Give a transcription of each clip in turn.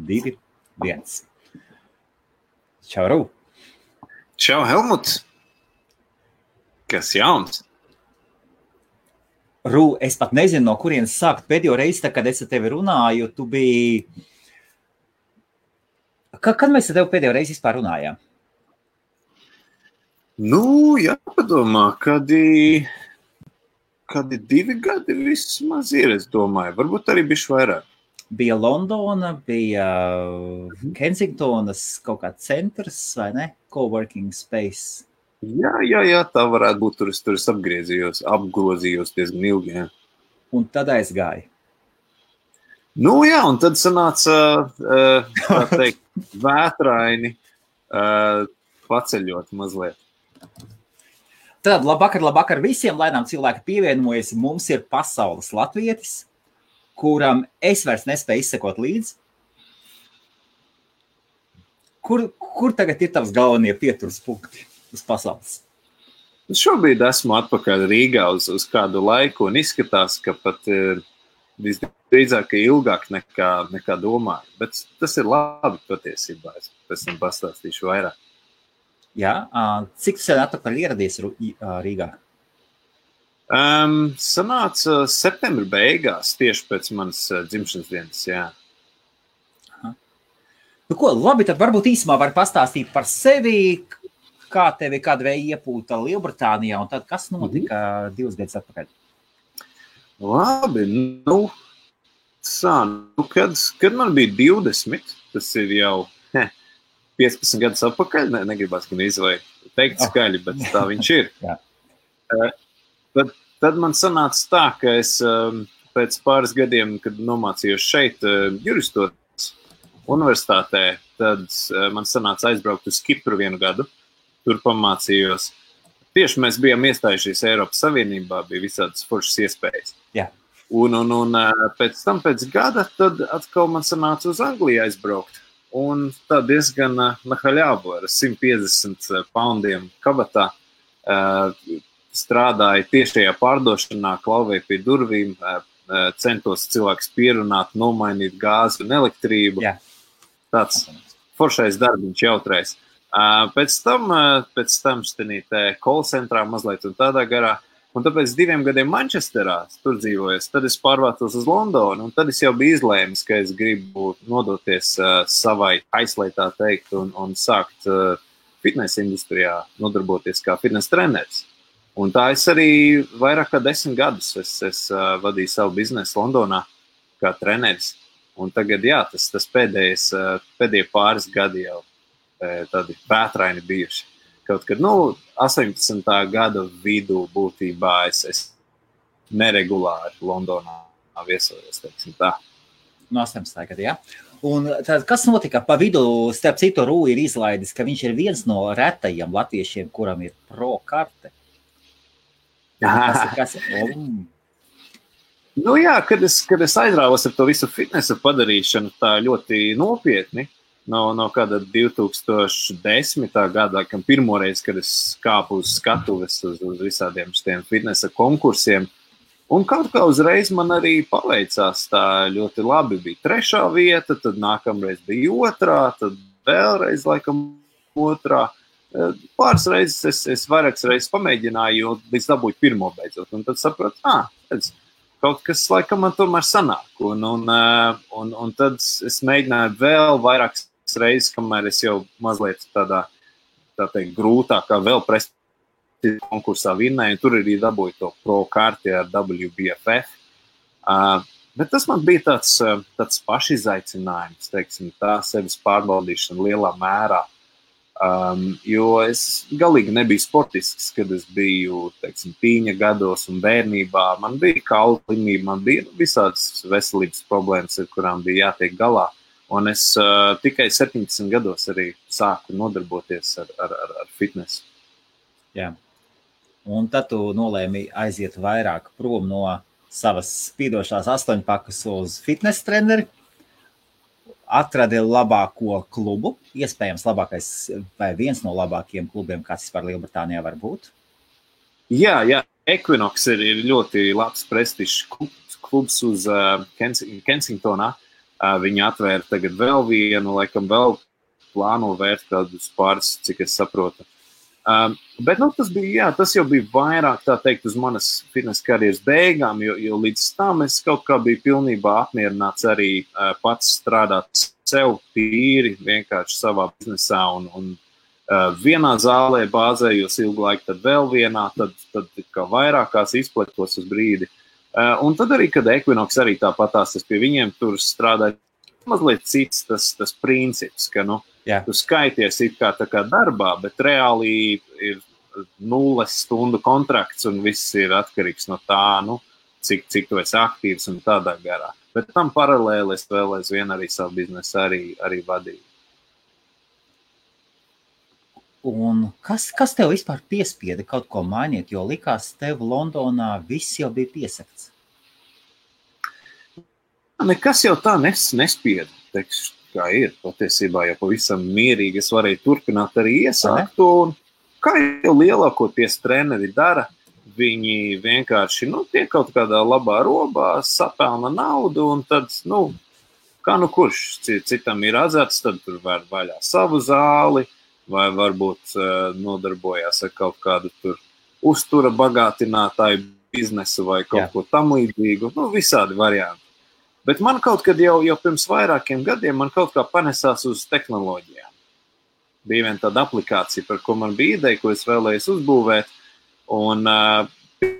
2, 1. Čau, Rū. Čau, Helmut. Kas jauns? Rū, es pat nezinu, no kurienes sākt. Pēdējo reizi, kad es ar tevi runāju, tu biji... Kad mēs ar tevi pēdējo reizi vispār runājām? Jāpadomā, kādi 2 gadi vismaz ir, es domāju. Varbūt arī bišķi vairāk. Bija Londona, bija Kensingtonas kaut kāds centrs, vai ne? Coworking space. Jā, tā varētu būt. Tur es apgrozījos diezgan ilgi, jā. Un tad aizgāja. Un tad sanāca, tā teikt, vētraini paceļot mazliet. Tad labvakar visiem, laidām cilvēki pievienojas. Mums ir pasaules latvietis, kuram es vairs nespēju izsekot līdzi. Kur tagad ir tavs galvenie pieturas punkti uz pasaules? Šobrīd esmu atpakaļ Rīgā uz kādu laiku un izskatās, ka pat visdrīzāk ilgāk nekā domāju. Bet tas ir labi patiesībā. Es pēc tam pastāstīšu vairāk. Jā, cik tu sen atpakaļ ieradies Rīgā? Sanāca septembra beigās, tieši pēc manas dzimšanas dienas, jā. Aha. Labi, tad varbūt īsumā var pastāstīt par sevi, kā tevi kāda vēja iepūta Lielbritānijā, un tad kas notika 2 gadus atpakaļ? Labi, kad man bija 20, tas ir jau 15 gadus atpakaļ, negribas gan izvai teikt skaļi, bet tā viņš ir. Tad man sanāca tā, ka es pēc pāris gadiem, kad nomācījos šeit juristotas universitātē, tad man sanāca aizbraukt uz Kipru 1 gadu. Tur pamācījos. Tieši mēs bijām iestājušies Eiropas Savienībā, bija visādas foršas iespējas. Jā. Un pēc tam, pēc gada, tad atkal man sanāca uz Angliju aizbraukt. Un tā diezgan nahaļāvu ar 150 poundiem kabatā strādāja tiešajā pārdošanā, klauvēja pie durvīm, centos cilvēks pierunāt, nomainīt gāzi un elektrību. Jā. Tāds foršais darbiņš jautrais. Pēc tam štenītē call centrā mazliet un tādā garā. Un tāpēc 2 gadiem Manchesterā tur dzīvojos, tad es pārvācos uz Londonu, un tad es jau biju izlēmis, ka es gribu nodoties savai aislai, tā teikt, un sākt fitness industrijā nodarboties kā fitness treneris. Un tā es arī vairāk kā 10 gadus es vadīju savu biznesu Londonā kā treneris. Un tagad, jā, tas pēdējie pāris gadi jau tādi vētraini bijuši. Kaut kad, 18. gada vidū būtībā es neregulāri Londonā viesojos, teiksim tā. 18. gada, jā. Un tad, kas notika pa vidu, starp citu, Rū ir izlaidis, ka viņš ir viens no retajiem latviešiem, kuram ir pro karte. Kas? Jā, kad es aizrāvos ar to visu fitnesa padarīšanu tā ļoti nopietni, no kāda 2010. Gada, kam pirmoreiz, kad es kāpu uz skatuves uz visādiem šitiem fitnesa konkursiem. Un kaut kā uzreiz man arī paveicās tā ļoti labi. Bija 3. vieta, tad nākamreiz bija 2, tad vēlreiz laikam 2. Pāris reizes es vairākas reizes pamēģināju, līdz dabūju 1. beidzot. Un tad sapratu, kaut kas laikam man tomēr sanāk. Un tad es mēģināju vēl vairākas reizes, kamēr es jau mazliet tādā, tā teikt, grūtākā vēl prestižu konkursā vinnēju, un tur arī dabūju to pro karti ar WBFF. Bet tas man bija tāds pašizaicinājums, teiksim, tā sevis pārbaudīšana lielā mērā. Jo es galīgi nebiju sportisks, kad es biju, teiksim, tīņa gados un bērnībā. Man bija kaulu slimība, man bija visādas veselības problēmas, ar kurām bija jātiek galā. Un es tikai 17 gados arī sāku nodarboties ar fitnesu. Jā. Un tad tu nolēmi aiziet vairāk prom no savas spīdošās 8-pakas uz fitness treneri. Atradi labāko klubu, iespējams labākais vai viens no labākajiem klubiem, kāds vispār Lielbritānijā var būt. Jā, Equinox ir ļoti labs prestižs klubs uz Kensingtonā. Viņi atvēra tagad vēl vienu, laikam vēl plāno vērt kādus pāris, cik es saprotu. Bet tas jau bija vairāk, tā teikt, uz manas fitness karjeras beigām, jo līdz tam es kaut kā biju pilnībā apmierināts arī pats strādāt sev tīri, vienkārši savā biznesā un vienā zālē bāzējos ilgu laiku, tad vēl vienā, tad kā vairākās izpletos uz brīdi. Un tad arī, kad Equinox arī tāpatās, es pie viņiem tur strādāju, mazliet cits tas princips, ka, tu skaities it kā tā kā darbā, bet reāli ir 0 stundu kontrakts un viss ir atkarīgs no tā, cik tu esi aktīvs un tādā garā. Bet tam paralēli es vēl aizvien arī savu biznesu arī vadīju. Un kas tev vispār piespieda kaut ko mainīt, jo likās tev Londonā viss jau bija piesakts? Nekas jau tā nespieda, teikšu, kā ir. Patiesībā jau pavisam mierīgi es varēju turpināt arī iesākt. Un kā jau lielākoties treneri dara, viņi vienkārši tiek kaut kādā labā robā, sapelna naudu un tad, kurš citam ir azarts, tad tur var vaļā savu zāli, vai varbūt nodarbojās ar kaut kādu tur uztura bagātinātāju biznesu vai kaut ko tam līdzīgu. Visādi varianti. Bet man kaut kad jau pirms vairākiem gadiem man kaut kā panesās uz tehnoloģijām. Bija viena tāda aplikācija, par ko man bija ideja, ko es vēlējos uzbūvēt. Un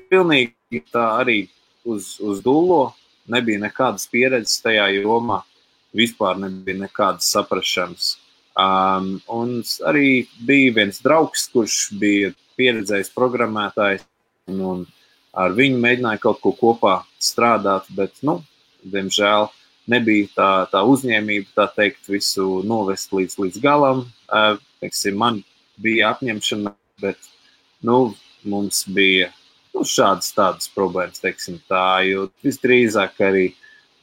pilnīgi tā arī uz dullo nebija nekādas pieredzes tajā jomā. Vispār nebija nekādas saprašanas. Un arī bija viens draugs, kurš bija pieredzējis programmētājs, un ar viņu mēģināja kaut ko kopā strādāt, bet, diemžēl nebija tā uzņēmība, tā teikt, visu novest līdz galam. Man bija apņemšana, bet, mums bija šādas tādas problēmas, teiksim tā, jo visdrīzāk arī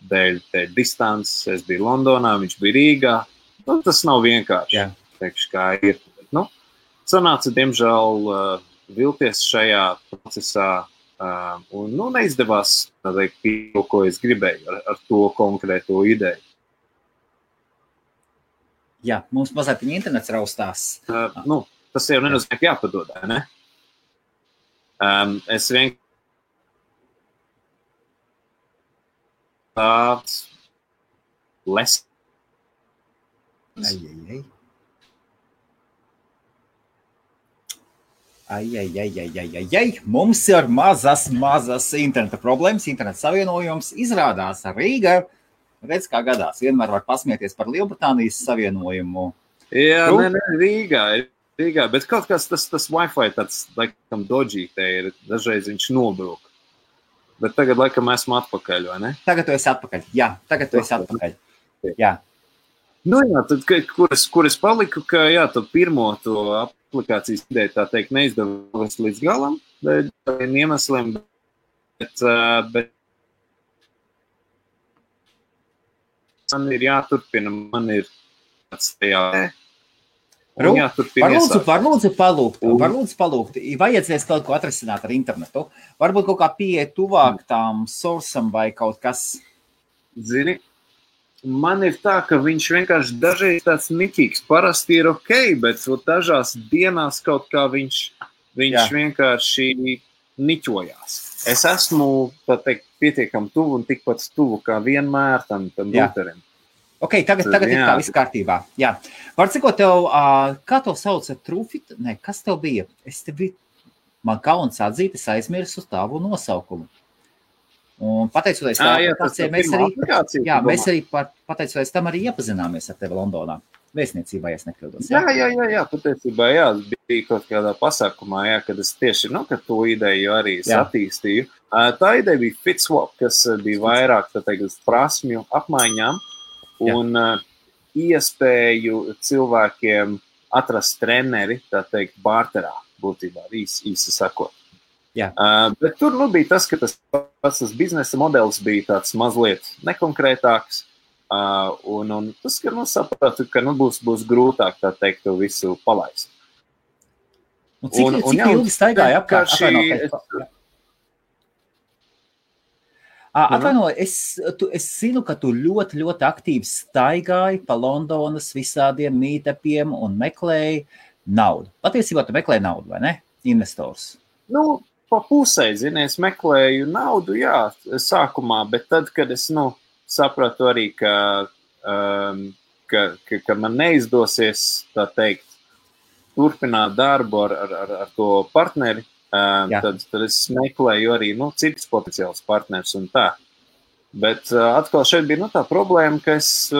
dēļ distances, es biju Londonā, viņš bija Rīgā. Tas nav vienkārši, teikšu, kā ir. Sanāca, diemžēl, vilties šajā procesā un neizdevās to, ko es gribēju ar to konkrēto ideju. Jā, mums mazliet internets raustās. Tas jau nenozīmē, ka jāpadod, ne? Es vienkārši tāds les. Mums ir mazas interneta problēmas, interneta savienojums. Izrādās Rīga, redz kā gadās, vienmēr var pasmieties par Lielbritānijas savienojumu. Jā, Rīgā, bet kaut kas tas Wi-Fi tāds, laikam, dodgy te ir, dažreiz viņš nobrūk. Bet tagad, laikam, esmu atpakaļ, vai ne? Tagad tu esi atpakaļ, jā, Jā. Tad, kur es paliku, ka, tad pirmo to aplikācijas ideju, tā teikt, neizdevās līdz galam, dēļ tādiem iemesliem, bet man ir jāturpina, man ir tāds tajā. Var lūdzu palūgt, vajadzēs kaut ko atrisināt ar internetu, varbūt kaut kā pieeja tuvāk tām sourceam vai kaut kas. Zini, man ir tā, ka viņš vienkārši dažreiz tāds niķīgs, parasti ir ok, bet dažās dienās kaut kā viņš vienkārši niķojās. Es esmu, tā teikt, pietiekam tuvu un tikpat tuvu kā vienmēr tam routerim. Ok, tagad ir tā viss kārtībā. Jā. Var cikot tev, kā tev sauca Trufit? Nē, kas tev bija? Man kauns atzīt, es aizmirsu tavu nosaukumu. Un pateicoties mēs arī pateicoties tam arī iepazināmies ar tevi Londonā. Vēstniecībā, ja es nekļūdos. Jā, patiesībā, bija kaut kādā pasākumā, kad es tieši, kad to ideju arī attīstīju. Tā ideja bija FitSwap, kas bija vairāk, tā teikt, uz prasmju apmaiņām un iespēju cilvēkiem atrast treneri, tā teikt, barterā, būtībā, īsi sakot. Bet tur bija tas, ka tas biznesa modelis bija tāds mazliet nekonkrētāks, un tas, ka sapratu, ka būs grūtāk, tā teikt, to visu palaist. Cik ilgi staigāja apkārt? Atvainojiet, es zinu, ka tu ļoti, ļoti aktīvi staigāji pa Londonas visādiem meetupiem un meklēji naudu. Patiesībā tu meklēji naudu, vai ne? Investors. Nu, pa pusē, zini, es meklēju naudu, jā, sākumā, bet tad, kad es, sapratu arī, ka man neizdosies, tā teikt, turpināt darbu ar to partneri, tad es meklēju arī, citus potenciālus partnerus un tā. Bet atkal šeit bija, tā problēma, ka es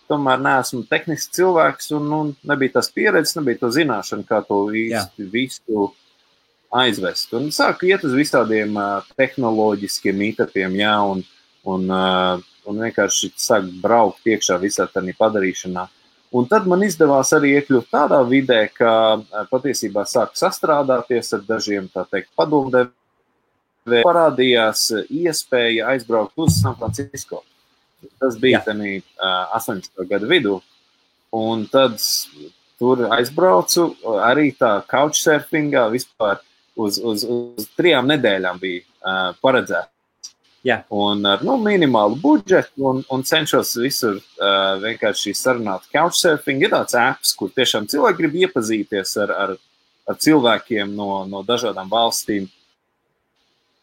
tomēr neesmu tehnisks cilvēks un nebija tās pieredzes, nebija to zināšana, kā to visu aizvest. Un sāku iet uz visādiem tehnoloģiskiem meetupiem, un vienkārši sāk braukt iekšā visā tādā padarīšanā. Un tad man izdevās arī iekļūt tādā vidē, ka patiesībā sāku sastrādāties ar dažiem, tā teikt, padomdevējiem. Parādījās iespēja aizbraukt uz San Francisco. Tas bija 18. gada vidū. Un tad tur aizbraucu arī tā couchsurfingā vispār uz 3 nedēļām bija paredzēts. Un ar minimālu budžetu un cenšos visur vienkārši sarunāt couchsurfing. Ir tāds apps, kur tiešām cilvēki grib iepazīties ar cilvēkiem no dažādām valstīm.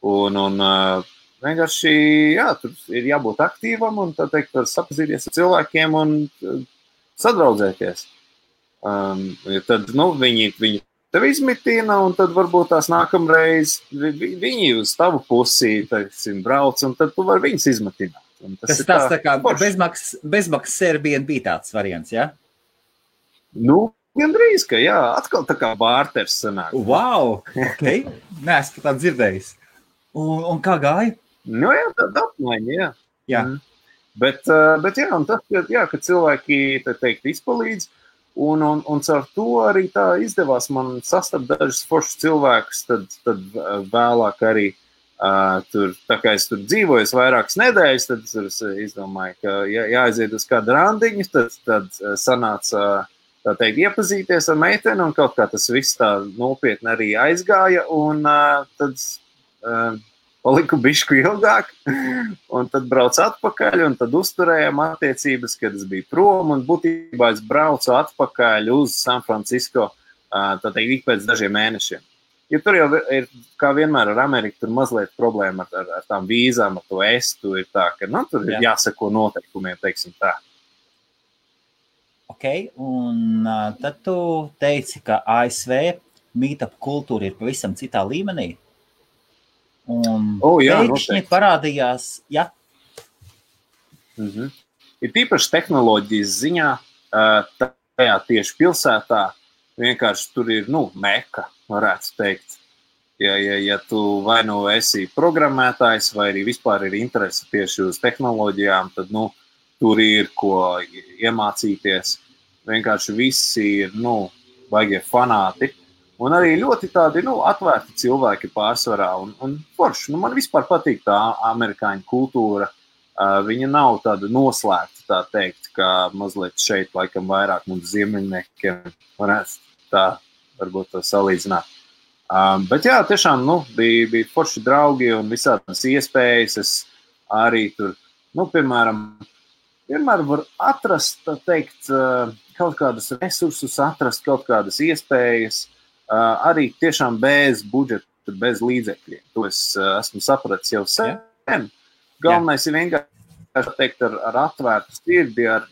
Un vienkārši, tur ir jābūt aktīvam un, tā teikt, var sapazīties ar cilvēkiem un sadraudzēties. Tad, viņi tevi izmitina un tad varbūt tās nākamreiz viņi uz tavu pusī, teiksim, brauc un tad tu vari viņus izmitināt. Tas tā kā bezmaksas Airbnb tāds variants, ja? Gandrīz, ka atkal tā kā bārters sanāk. Wow, ok, neesmu tā dzirdējis. Un kā gāja? Tāda apmaiņa, Bet un tas, ka cilvēki, tā teikt, izpalīdz, un caur to arī tā izdevās man sastapt dažus foršus cilvēkus, tad vēlāk arī tur, tā kā es tur dzīvoju vairākas nedēļas, tad es izdomāju, ka jāaiziet uz kādu randiņu, tad sanāca, tā teikt, iepazīties ar meiteni, un kaut kā tas viss tā nopietni arī aizgāja, un tad paliku bišku ilgāk, un tad braucu atpakaļ, un tad uzturējām attiecības, kad es biju prom, un būtībā es braucu atpakaļ uz San Francisco, tā teikt, ik pēc dažiem mēnešiem. Jo tur jau ir, kā vienmēr ar Ameriku, tur mazliet problēma ar tām vīzām, ar to estu, ir tā, ka, tur ir jāseko noteikumiem, teiksim tā. Ok, un tad tu teici, ka ASV meetup kultūra ir pavisam citā līmenī. Un pēkšņi parādījās, Ir tīpaši tehnoloģijas ziņā, tajā tieši pilsētā, vienkārši tur ir, meka, varētu teikt. Ja tu vai esi programmētājs, vai arī vispār ir interese tieši uz tehnoloģijām, tad, tur ir ko iemācīties. Vienkārši visi ir, vajag fanāti. Un arī ļoti tādi, atvērti cilvēki pārsvarā un forši. Man vispār patīk tā amerikāņu kultūra. Viņa nav tāda noslēgta, tā teikt, kā mazliet šeit, laikam, vairāk mums ziemeļniekiem varētu tā, varbūt to salīdzināt. Bet tiešām, bija forši draugi un visādas iespējas. Es arī tur, piemēram, vienmēr var atrast, tā teikt, kaut kādus resursus, atrast kaut kādas iespējas, arī tiešām bez budžeta, bez līdzekļiem. To es esmu sapratis jau sen. Galvenais ir vienkārši teikt ar atvērtu sirdi, ar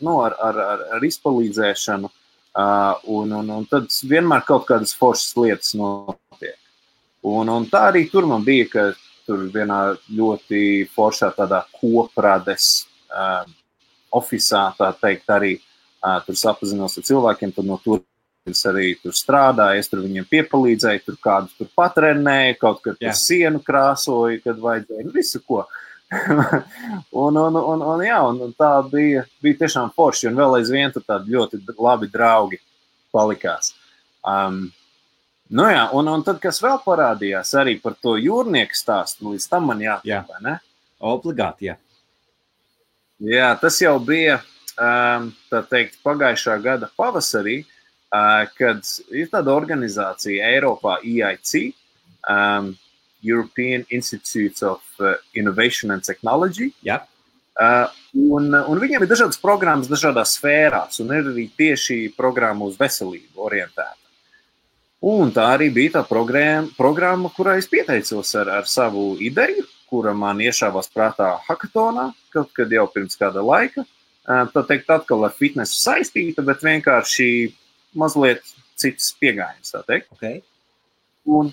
izpalīdzēšanu, un tad vienmēr kaut kādas foršas lietas notiek. Un tā arī tur man bija, ka tur vienā ļoti foršā tādā koprades ofisā, tā teikt, arī tur sapazinos ar cilvēkiem, tad no tur es arī tur strādāju, es tur viņiem piepalīdzēju, tur kādus tur patrenēju, kaut kad tur sienu krāsoju, kad vajadzēja, visu ko. un tā bija tiešām forši, un vēl aizvien tur tādi ļoti labi draugi palikās. Un tad, kas vēl parādījās arī par to jūrnieku stāstu, līdz tam man jātībā, ne? Obligāti, Jā, tas jau bija, tā teikt, pagājušā gada pavasarī, kad ir tāda organizācija Eiropā EIC, European Institute of Innovation and Technology. Jā. Un viņiem ir dažādas programmas dažādās sfērās, un ir arī tieši programma uz veselību orientēta. Un tā arī bija tā programma, kurā es pieteicos ar savu ideju, kura man iešāvās prātā hackathonā, kaut kad jau pirms kāda laika. Tā teikt atkal ar fitnesu saistīta, bet vienkārši mazliet cits piegājiens, tā teikt. Okay. Un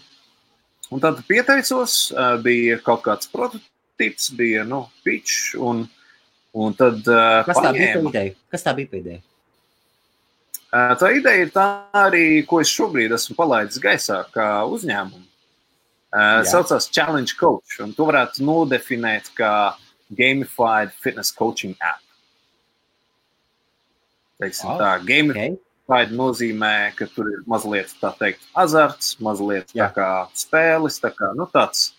tad pieteicos, bija kaut kāds prototyps, bija, pitch, un tad Kas tā bija pa ideja? Kas tā bija pa ideja? Tā ideja ir tā arī, ko es šobrīd esmu palaidis gaisā kā uzņēmumu. Saucās Challenge Coach, un to varētu nodefinēt kā Gamified Fitness Coaching App. Teiksim tā, Gamified nozīmē, ka tur ir mazliet, tā teikt, azarts, mazliet tā kā spēles, tā kā, tāds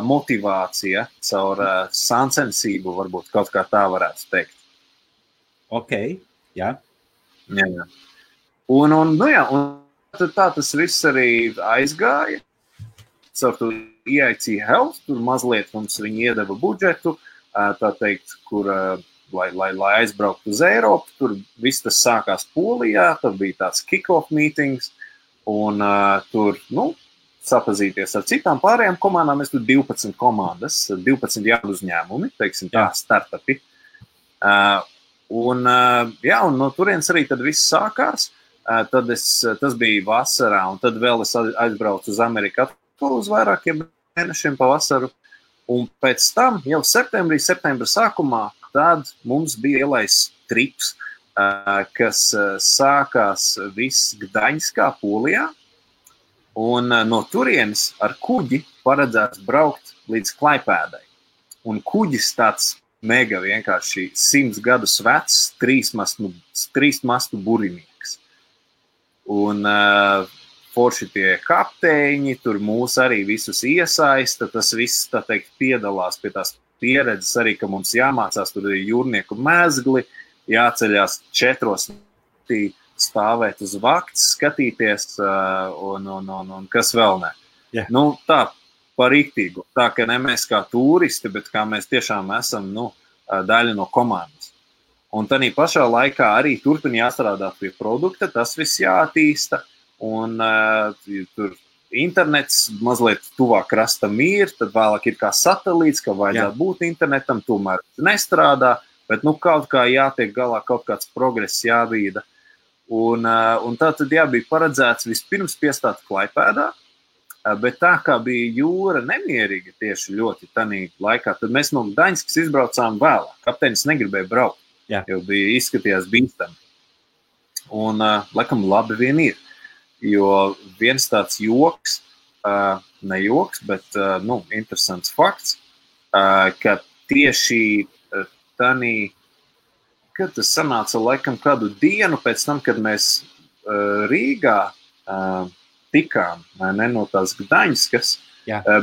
motivācija caur sāncensību, varbūt kaut kā tā varētu teikt. Ok, jā. Jā. Un tā tas viss arī aizgāja. Caur to EIC Health, tur mazliet mums viņi iedeva budžetu, tā teikt, kur, lai aizbrauktu uz Eiropu, tur viss tas sākās Polijā, tad bija tāds kick-off meetings, un tur, sapazīties ar citām pārējām komandām, mēs tur 12 komandas, 12 jaunu uzņēmumi, teiksim tā, startupi. Un no turienes arī tad viss sākās, tad tas bija vasarā, un tad vēl es aizbraucu uz Ameriku uz vairākiem mēnešiem pa vasaru, un pēc tam jau septembra sākumā, tad mums bija ielaists trips, kas sākās viss Gdaņskā, Polijā, un no turienes ar kuģi paredzēts braukt līdz Klaipēdai. Un kuģis tāds mega vienkārši 100 gadus vecs, trīsmastu burinieks. Un forši tie kapteiņi, tur mūs arī visus iesaista, tas viss, tā teikt, piedalās pie tās pieredzes arī, ka mums jāmācās, tur ir jūrnieku mezgli, jāceļās 4 stāvēt uz vakts, skatīties un kas vēl ne. Yeah. Tā par rīktīgu. Tā, ka ne mēs kā turisti, bet kā mēs tiešām esam daļa no komandas. Un tādā pašā laikā arī turpin jāstrādāt pie produkta, tas viss jāattīsta, un tur internets mazliet tuvāk krastam ir, tad vēlāk ir kā satelīts, ka vajadzētu būt internetam, tomēr nestrādā, bet kaut kā jātiek galā, kaut kāds progress jāvīda. Un tā tad bija paredzēts vispirms piestāt Klaipēdā, bet tā kā bija jūra nemierīga tieši ļoti tanī laikā, tad mēs no Gdaņskas izbraucām vēlāk. Kapteinis negribēja braukt, jo bija izskatījās bīstami. Un laikam labi vien ir, jo viens tāds joks, ne joks, bet interesants fakts, ka tieši tanī, kad tas sanāca laikam kādu dienu pēc tam, kad mēs Rīgā tikām, no tās Gdaņskas,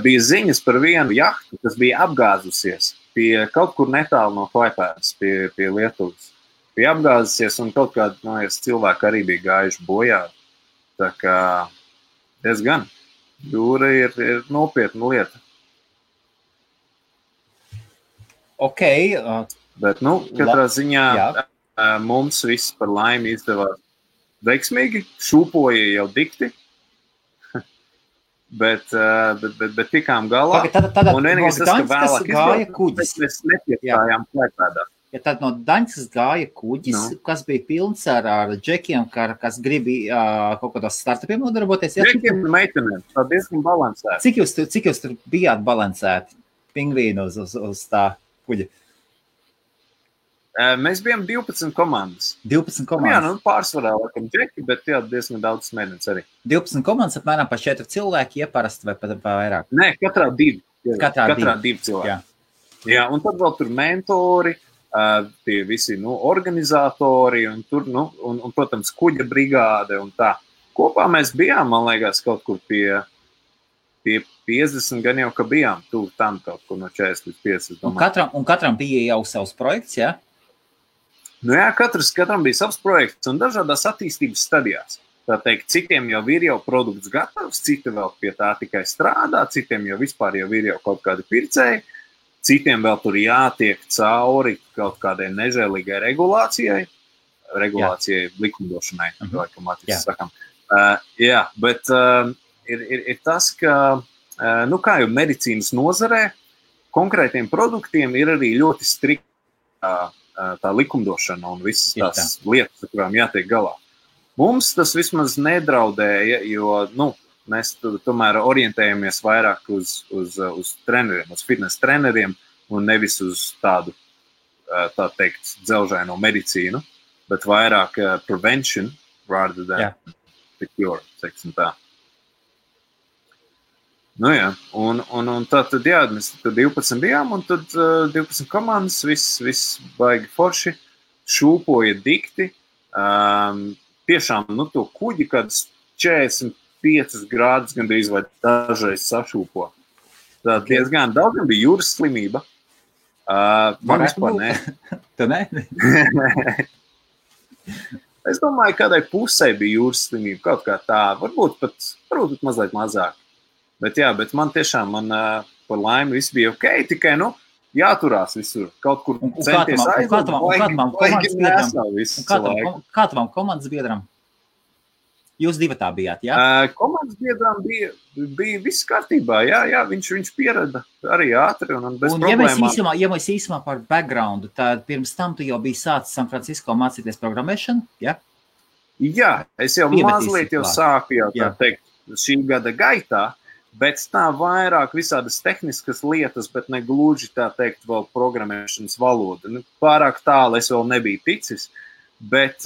bija ziņas par vienu jahtu, kas bija apgāzusies pie kaut kur netālu no Klaipēdas, pie Lietuvas. Bija apgāzusies un kaut kādi cilvēki arī bija gājuši bojā. Tā kā diezgan jūra ir nopietna lieta. Ok. Bet, katrā ziņā mums viss par laimi izdevās veiksmīgi, šūpoja jau dikti, bet tikām galā. Un vienīgais tas, ka vēlāk mēs nepiestājām Klaipēdā. Ja tad no Daņskas gāja kuģis, kas bija pilns ar džekiem, kas gribīja kaut kādos startupiem nodarboties. Džekiem un meitenēm, tā diezgan balansēti. Cik jūs tur bijāt balansēti pingvīnu uz tā kuģa? Mēs bijām 12 komandas. 12 komandas? Jā, pārsvarā laikam džeki, bet diezgan daudz smēdens arī. 12 komandas apmēram pa 4 cilvēki, parasti vai pat vairāk? Nē, katrā 2. Katrā 2 cilvēki. Jā, un tad vēl tur mentori, tie visi organizatori, un tur, un, protams, kuģa brigāde un tā. Kopā mēs bijām, man liekas, kaut kur pie 50 gan jau, ka bijām tuvu tam kaut kur no 40 līdz 50. Un katram bija jau savs projekts, jā? Jā, katram bija savs projekts un dažādās attīstības stadijās. tā teikt, citiem jau ir jau produkts gatavs, citi vēl pie tā tikai strādā, citiem jau vispār jau ir jau kaut kādi pircēji, citiem vēl tur jātiek cauri kaut kādai nežēlīgai regulācijai likumdošanai, laikam atīs sakam. Jā, bet ir tas, ka, nu kā jau medicīnas nozarē, konkrētiem produktiem ir arī ļoti strikta tā likumdošana un visas tās lietas, ar kurām jātiek galā. Mums tas vismaz nedraudēja, jo, nu, mēs tomēr orientējamies vairāk uz treneriem, uz fitness treneriem un nevis uz tādu, tā teikt, dzelžaino medicīnu, bet vairāk prevention rather than the cure, teiksim tā. Nu jā, un tad, jā, mēs tur 12 bijām, un tad 12 komandas, viss baigi forši, šūpoja dikti, tiešām, nu, to kuģi, kad 45 grādus gandrīz vai dažreiz sašūpo. Tā diezgan daudz bija jūras slimība. Man vispār nē. Tu nē? Es domāju, kādai pusē bija jūras slimība, kaut kā tā, varbūt pat mazliet mazāk. Bet jā, bet man tiešām, par laimi viss bija ok, tikai, nu, jāturās visur, kaut kur centies aiziet, Kā tavam komandas biedram? Jūs divatā bijāt, jā? Komandas biedram bija viss kārtībā, jā, viņš pierada arī ātri un bez problēmām. Ja mēs īsumā par backgroundu, tad pirms tam tu jau biji sācis San Francisco mācīties programmēšanu, jā? Jā, es jau mazliet jau sāku jau tā teikt šī gada gaitā, bet tā vairāk visādas tehniskas lietas, bet ne gluži tā teikt vēl programmēšanas valoda. Pārāk tālu es vēl nebiju ticis, bet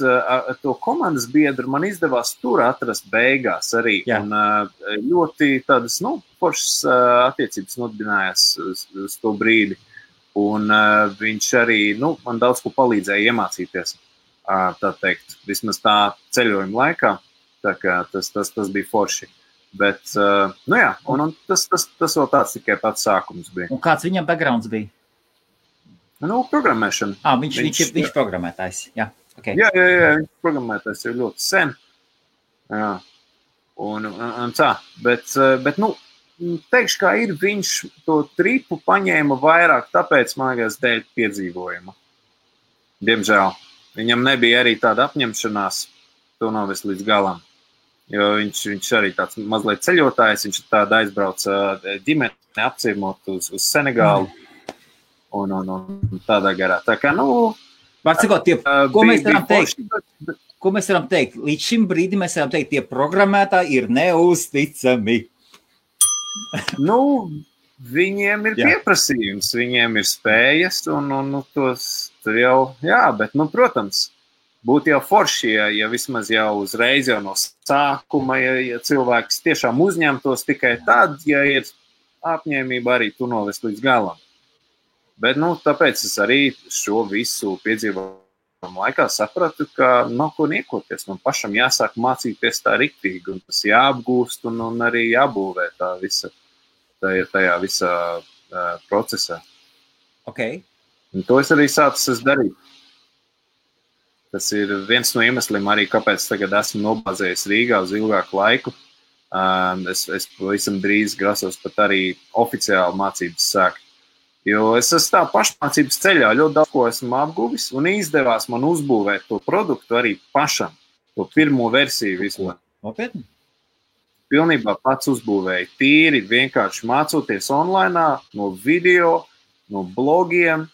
to komandas biedru man izdevās tur atrast beigās arī. Jā. Un ļoti tādas, nu, foršas attiecības nodibinājās uz to brīdi. Un viņš arī, nu, man daudz ko palīdzēja iemācīties, tā teikt, vismaz tā ceļojuma laikā. Tā kā tas bija forši. Bet, nu jā, un tas vēl tāds tikai pats sākums bija. Un kāds viņam backgrounds bija? Nu, programmēšana. Viņš programmētājs, jā. Okay. Jā, viņš programmētājs jau ļoti sen. Jā. Un tā, bet, nu, teikšu, kā ir, viņš to tripu paņēma vairāk, tāpēc, man liekas, dēļ piedzīvojuma. Diemžēl. Viņam nebija arī tāda apņemšanās, to novest līdz galam. Jo viņš arī tāds mazliet ceļotājs, viņš tāda aizbrauca ģimeni apciemot uz Senegālu un tādā garā. Tā kā, nu... Ko mēs varam teikt? Līdz šim brīdim mēs varam teikt, tie programmētāji ir neusticami. Nu, viņiem ir pieprasījums, viņiem ir spējas un tos tur jau, jā, bet, nu, protams, būtu jau forši, ja vismaz jau uzreiz jau no sākuma, ja cilvēks tiešām uzņemtos tikai tad, ja ir apņēmība arī tu novest līdz galam. Bet, nu, tāpēc es arī šo visu piedzīvojumu laikā sapratu, ka nav ko niekoties. Man pašam jāsāk mācīties tā riktīgi, un tas jāapgūst un arī jābūvē tajā visā procesā. Okay. Un to es arī sācis darīt. Tas ir viens no iemesliem arī, kāpēc tagad esmu nobāzējies Rīgā uz ilgāku laiku. Es pavisam drīz grasos pat arī oficiāli mācības sākt. Jo es esmu tā pašmācības ceļā, ļoti daudz ko esmu apguvis un izdevās man uzbūvēt to produktu arī pašam, to pirmo versiju vispār. Nopietni? Pilnībā pats uzbūvēju tīri, vienkārši mācoties online, no video, no blogiem.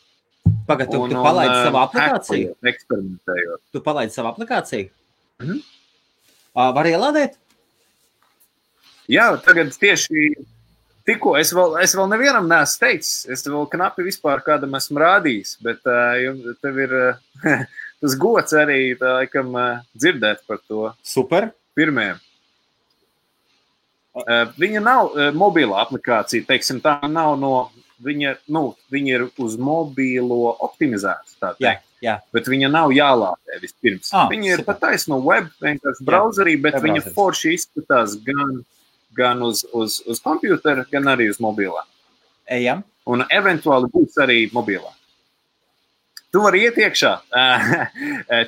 Pagad, tu palaidi savu aplikāciju? Eksperimentējot. Tu palaidi savu aplikāciju? Var ielādēt? Jā, tagad tieši tikko es vēl nevienam neesmu teicis. Es vēl knapi vispār kādam esmu rādījis, bet tev ir tas gods arī laikam dzirdēt par to. Super. Pirmajam. Viņa nav mobila aplikācija, teiksim, tā nav no... Viņa ir uz mobīlo optimizēta, tā teikt. Jā. Bet viņa nav jālādē vispirms. Viņa ir pataisno web, vienkārši browserī, bet viņa forši izskatās gan uz kompjutera, gan arī uz mobilā. Ejam. Un eventuāli būs arī mobilā. Tu vari iet iekšā.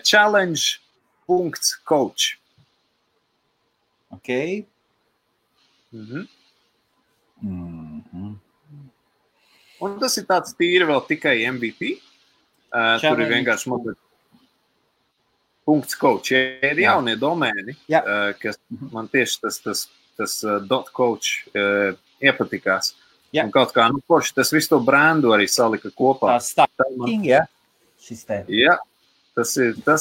Challenge.coach. Ok. Un tas ir tāds tīri vēl tikai MVP. Tur ir vienkārši .coach. Ja ir jaunie domēni, kas man tieši tas .coach iepatikās. Jā. Un kaut kā, forši tas visu to brandu arī salika kopā. Tā starting, šis te. Jā, tas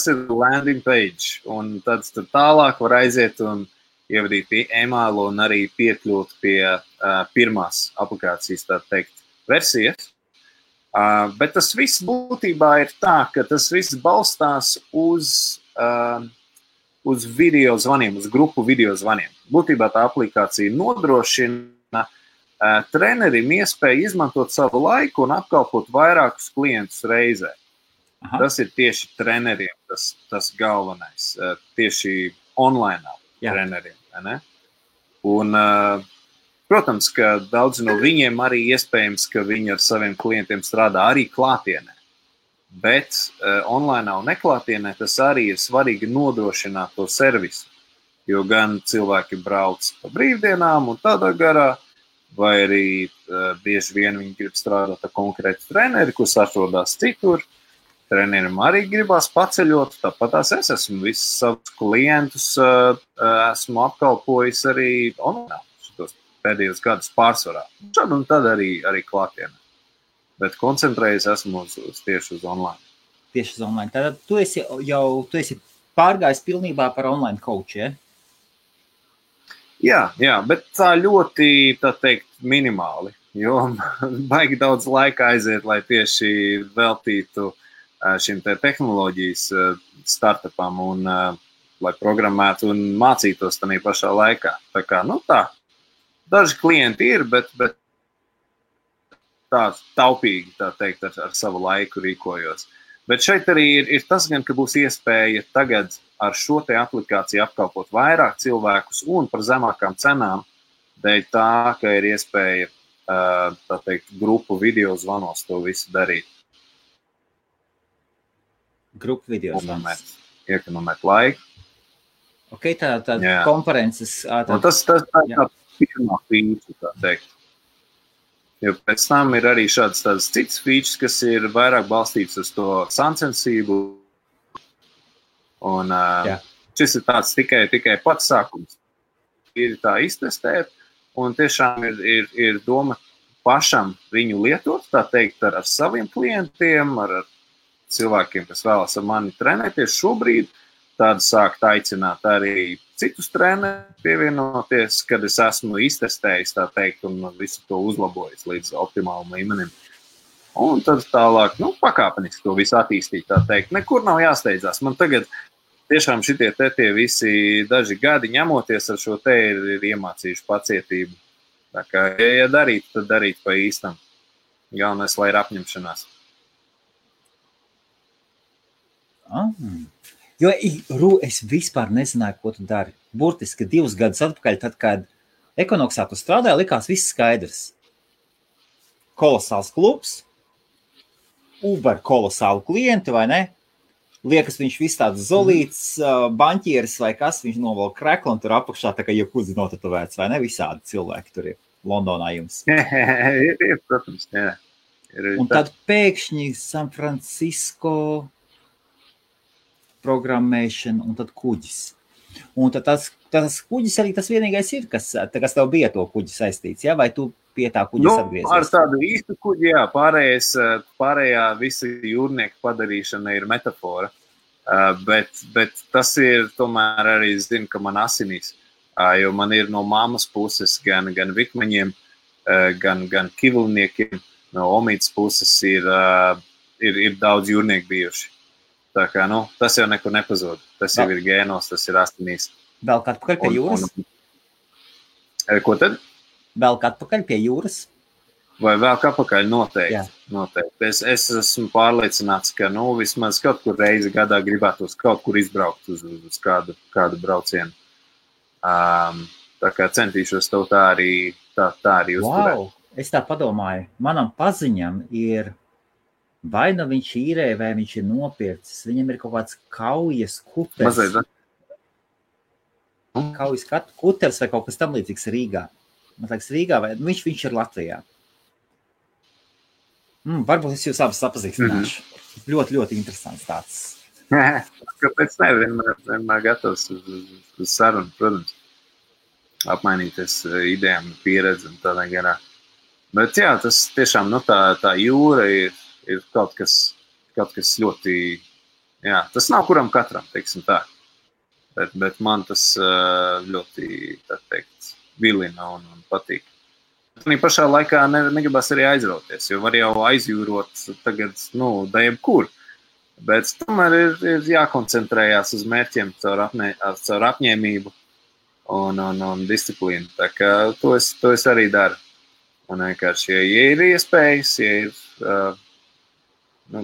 ir landing page. Un tad tālāk var aiziet un ievadīt e-mailu un arī piekļūt pie pirmās aplikācijas, tā teikt, versijas. Bet tas viss būtībā ir tā, ka tas viss balstās uz video zvaniem, uz grupu video zvaniem. Būtībā tā aplikācija nodrošina trenerim iespēju izmantot savu laiku un apkalpot vairākus klientus reizē. Aha. Tas ir tieši treneriem tas galvenais, tieši online treneriem. Ne? Un, protams, ka daudzi no viņiem arī iespējams, ka viņi ar saviem klientiem strādā arī klātienē. Bet online un neklātienē tas arī ir svarīgi nodrošināt to servisu. Jo gan cilvēki brauc pa brīvdienām un tādā garā, vai arī bieži vien viņi grib strādāt ar konkrētu treneri, kurš atrodas citur. Trenerim arī gribās paceļot, tāpat es esmu visus savus klientus esmu apkalpojis arī online šitos pēdējos gadus pārsvarā. Šad un tad arī klātienē. Bet koncentrējies esmu tieši uz online. Tieši uz online. Tātad tu esi pārgājis pilnībā par online coach, ja? Jā, bet tā ļoti, tā teikt, minimāli, jo baigi daudz laika aiziet, lai tieši veltītu šim te tehnoloģijas startupam un lai programmētu un mācītos tādā pašā laikā. Tā kā, daži klienti ir, bet tā taupīgi, tā teikt, ar savu laiku rīkojos. Bet šeit arī ir tas gan, ka būs iespēja tagad ar šo te aplikāciju apkalpot vairāk cilvēkus un par zemākām cenām, dēļ tā, ka ir iespēja, tā teikt, grupu video zvanos to visu darīt. Grupu video zvanos. Iekonomēt laiku. Ok, tā konferences. Tas tā pirmā feature, tā teikt. Jo pēc tam ir arī šāds cits features, kas ir vairāk balstīts uz to sacensību. Un šis ir tāds tikai pats sākums. Ir tā iztestēt, un tiešām ir doma pašam viņu lietot, tā teikt, ar saviem klientiem, ar cilvēkiem, kas vēlas ar mani trenēties šobrīd. Tādu sākt aicināt arī citus trenerus pievienoties, kad es esmu iztestējis, tā teikt, un visu to uzlabojis līdz optimālam līmenim. Un tad tālāk, pakāpeniski to visu attīstīt, tā teikt. Nekur nav jāsteidzās. Man tagad tiešām šitie visi daži gadi ņemoties ar šo te ir iemācījuši pacietību. Tā kā, ja darīt, tad darīt pa īstam. Galvenais, lai ir apņemšanās. Jo es vispār nezināju, ko tu dari. Burtiski 2 gadus atpakaļ, tad, kad Ekonoksā tu strādāji, likās viss skaidrs. Kolosāls klubs, Uber kolosālu klienti, vai ne? Liekas, viņš viss tāds zolīts, baņķieris vai kas, viņš novēl kreklu un tur apakšā tā kā jebkudzi notatovēts, vai ne? Visādi cilvēki tur ir Londonā jums. Ir, protams, jā. Un tad pēkšņi San Francisco programmēšana un tad kuģis. Un tad tas kuģis arī tas vienīgais ir, kas tev bija to kuģi saistīts, ja? Vai tu pie tā kuģis atgriezies? Ar tādu īstu kuģi, jā, pārējā visa jūrnieka padarīšana ir metafora, bet tas ir tomēr arī, es zinu, ka man asinīs, jo man ir no mammas puses gan vikmaņiem, gan kivulniekiem, no omītas puses ir daudz jūrnieku bijuši. Tā kā, tas jau nekur nepazūd. Tas jau ir gēnos, tas ir asinīs. Vēl atpakaļ pie jūras? Ko tad? Vēl atpakaļ pie jūras? Vai vēl atpakaļ? Noteikti. Es esmu pārliecināts, ka vismaz kaut kur reizi gadā gribētos kaut kur izbraukt uz kādu braucienu. Tā kā centīšos tev tā arī uzturēt. Wow, es tā padomāju. Manam paziņam ir vai nu viņš īrē, vai viņš ir nopircis. Viņam ir kaut kāds kaujas kuteris. Mazliet, Kaujas Kuters vai kaut kas tam līdzīgs Rīgā. Man liekas, Rīgā, vai viņš ir Latvijā. Varbūt es jūs abas sapazīstināšu. Ļoti, ļoti interesants tāds. Kāpēc ne? Vienmēr gatavs uz sarunu, protams. Apmainīties idejām, pieredzi un tādā garā. Bet jā, tas tiešām, tā jūra ir kaut kas ļoti, jā, tas nav kuram katram, teiksim tā. Bet man tas ļoti, tā teikt, vilina un patīk. Un pašā laikā negribas arī aizrauties, jo var jau aizjūrot tagad, jebkur. Bet tomēr ir jākoncentrējās uz mērķiem caur apņēmību un disciplīnu. Tā kā to es arī daru. Un vienkārši, ja ir iespējas, ja ir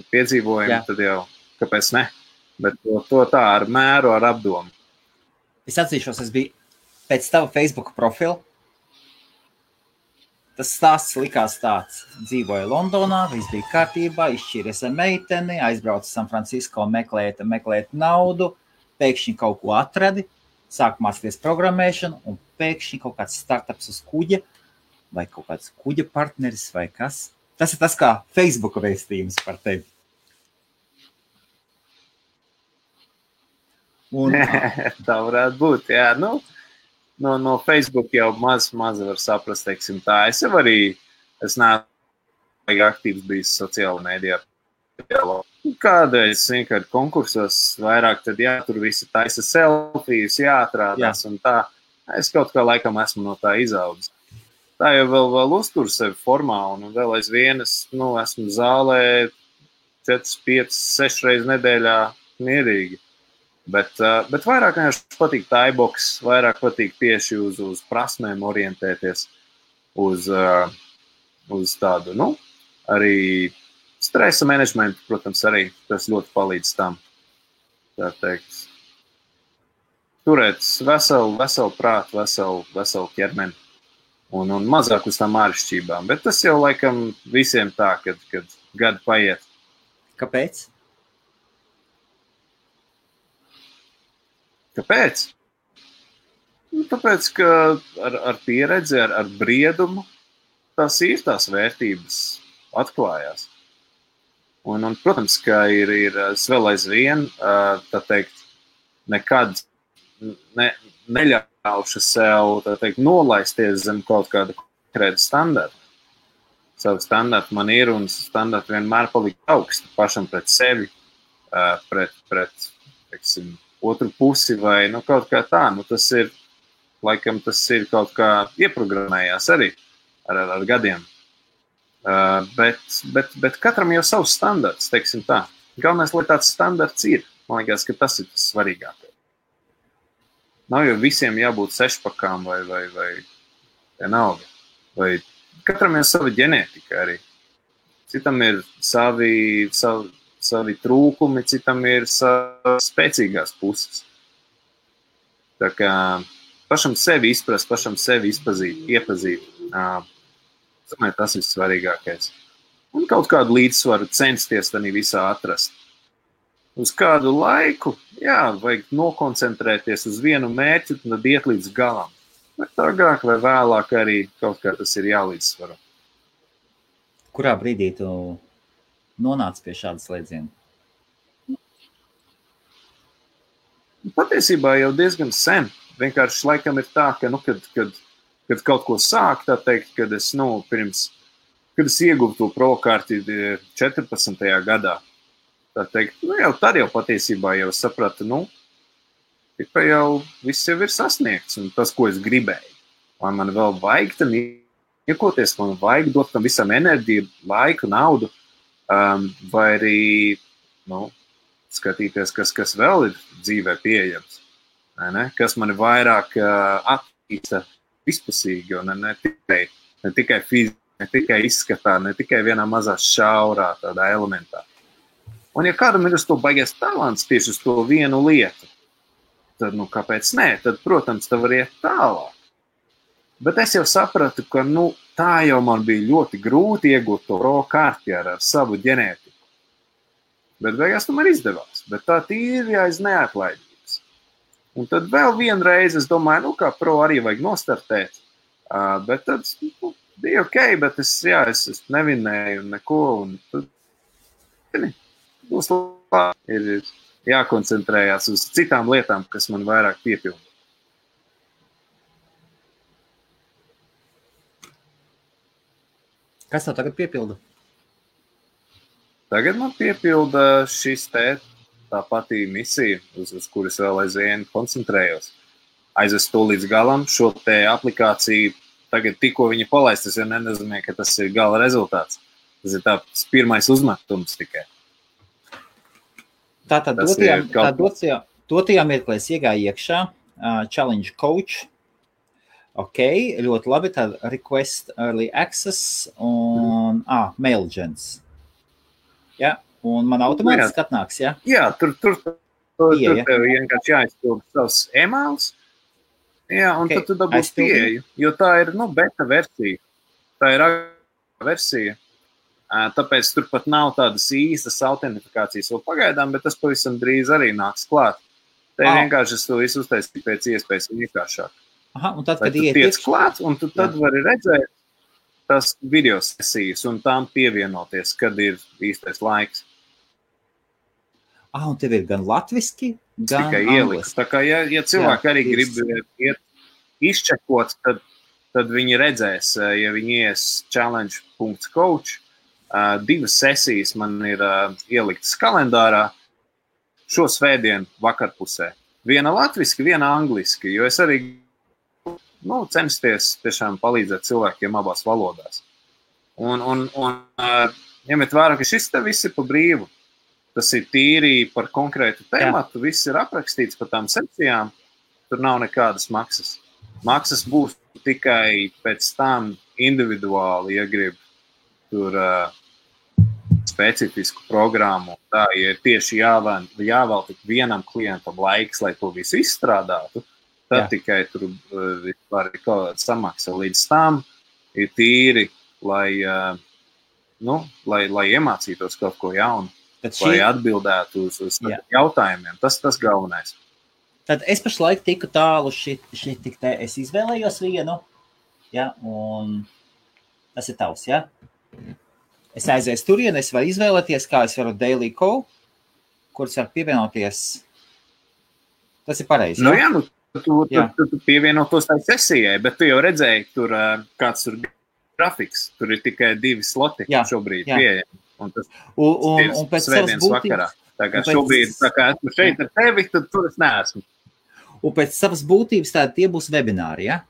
piedzīvojumi, tad jau kāpēc ne? Bet to tā ar mēru, ar apdomu. Es atzīšos, es biju pēc tava Facebook profila. Tas stāsts likās tāds. Dzīvoja Londonā, viss bija kārtībā, izšķīries ar meiteni, aizbrauca San Francisco meklēt naudu, pēkšņi kaut ko atradi, sāk mācīties programmēšanu, un pēkšņi kaut kāds startups uz kuģa, vai kaut kāds kuģa partneris, vai kas. Tas ir tas kā Facebook vēstījums par tevi. Tā varētu būt, jā. No Facebook jau maz var saprast, teiksim tā. Es neesmu aktīvs bijis sociāla mēdījā. Kādreiz vienkārši konkursos vairāk, tad jā, tur visi taisa selfijas, jāatrādās un tā. Es kaut kā laikam esmu no tā izaudzis. Tā jau vēl uztur sevi formā un vēl aizvien esmu zālē 4, 5, 6 reizes nedēļā mierīgi. Bet vairāk vienkārši patīk Thaibox, vairāk patīk tieši uz prasmēm orientēties, uz tādu, arī stresa menedžmentu, protams, arī tas ļoti palīdz tam, tā teikt. Turēt veselu prātu, veselu ķermeni un mazāk uz tām āršķībām. Bet tas jau laikam visiem tā, kad gadi paiet. Kāpēc? Kāpēc? Tāpēc, ka ar pieredzi, ar briedumu tās ir tās vērtības atklājās. Un protams, ka ir vēl aizvien, tā teikt, nekad neļaušu sev, tā teikt, nolaisties zem kaut kāda konkrēta standarta. Savu standartu man ir un standartu vienmēr palikt augstu pašam pret sevi, pret teiksim, otru pusi vai kaut kā tā. Tas ir kaut kā ieprogrammējās arī ar gadiem. Bet katram jau savs standarts, teiksim tā. Galvenais, lai tāds standarts ir. Man liekas, ka tas ir tas svarīgākais. Nav jau visiem jābūt sešpakām vai vienalga. Vai katram ir sava ģenētika arī. Citam ir savi trūkumi, citam ir spēcīgās puses. Tā kā pašam sevi izprast, pašam sevi iepazīt. Tas ir svarīgākais. Un kaut kādu līdzsvaru censties tādā visā atrast. Uz kādu laiku, jā, vajag nokoncentrēties uz vienu mērķi un tad iet līdz galam. Bet agrāk vai vēlāk arī kaut kā tas ir jālīdzsvaro. Kurā brīdī tu nonāca pie šādas slēdziena? Patiesībā jau diezgan sen. Vienkārši laikam ir tā, ka, kad kaut ko sāk, tā teikt, kad es ieguvu to prokārti 14. gadā, tā teikt, jau tad jau patiesībā jau sapratu, ka jau viss jau ir sasniegts un tas, ko es gribēju. Vai man vēl vajag tam iekoties, man vajag dot tam visam enerģiju, laiku, naudu, vai arī, skatīties, kas vēl ir dzīvē pieejams. Kas mani vairāk attīsta vispusīgi, un ne tikai fiziski, ne tikai izskatā, ne tikai vienā mazā šaurā tādā elementā. Un ja kādam ir uz to baigies talants tieši uz to vienu lietu, tad, kāpēc nē? Tad, protams, tā var iet tālāk. Bet es jau sapratu, ka, tā jau man bija ļoti grūti iegūt to prokārti ar savu ģenētiku. Bet beigās tomēr izdevās. Bet tā tīri aiz neatlaidības. Un tad vēl vienreiz es domāju, kā pro arī vajag nostartēt. Bet tad bija ok, bet es nevinēju neko. Un tad būs labi. Ir jākoncentrējās uz citām lietām, kas man vairāk piepilda. Kas tev tagad piepilda? Tagad man piepilda šis tā patī misija, uz kuras vēl aizvien koncentrējos. Aizvest to līdz galam, šo te aplikāciju, tagad tikko viņa palaist, es jau nenozīmē, ka tas ir gala rezultāts. Tas ir tāds pirmais uzmetums tikai. Tātad dotajā mirklē es iegāju iekšā, Challenge Coach, ok, ļoti labi, tad Request Early Access un MailGens. Ja, un man automātiski atnāks, ja? Jā, tur tev vienkārši jāizpild savs emails, jā, un tad tu dabūs pieeju, jo tā ir, beta versija. Tā ir versija. Tāpēc tur pat nav tādas īstas autentifikācijas vēl pagaidām, bet tas pavisam drīz arī nāks klāt. Te vienkārši es to visu uztaisīju pēc iespējas vienkāršāk. Aha, un tad, kad tu tiec klāt, un tu tad vari redzēt tās video sesijas un tām pievienoties, kad ir īstais laiks. Un tev ir gan latviski, gan tikai ieliks. Tā kā, ja cilvēki arī grib iet izčekot, tad viņi redzēs, ja viņi ies challenge.coach, 2 sesijas man ir ieliktas kalendārā šo svētdienu vakarpusē. Viena latviski, viena angliski, jo es arī censties tiešām palīdzēt cilvēkiem abās valodās. Un ņemiet vērā, ka šis te viss ir pa brīvu. Tas ir tīri par konkrētu tēmatu, viss ir aprakstīts par tām sekcijām, tur nav nekādas maksas. Maksas būs tikai pēc tam individuāli, ja grib tur specifisku programmu. Tā ir tieši jāvēl tik vienam klientam laiks, lai to visu izstrādātu. Tad tikai tur var kaut kāda samaksa. Līdz tam ir tīri, lai iemācītos kaut ko jaunu, lai atbildētu uz jautājumiem. Tas galvenais. Tad es pašlaik tiku tālu tik te. Es izvēlējos vienu, un tas ir tavs, Es aizēju turien, es varu izvēlēties, kā es varu daily call, kurus var pievienoties. Tas ir pareizi, Tu pievienotos tai sesijai, bet tu jau redzēji, tur kāds tur grafiks. Tur ir tikai 2 sloti šobrīd pieejami. Un tas un pēc svētdienas vakarā. Tā kā šobrīd, tā kā esmu šeit ar tevi, tad tur es neesmu. Un pēc savas būtības tādi tie būs webināri, ja?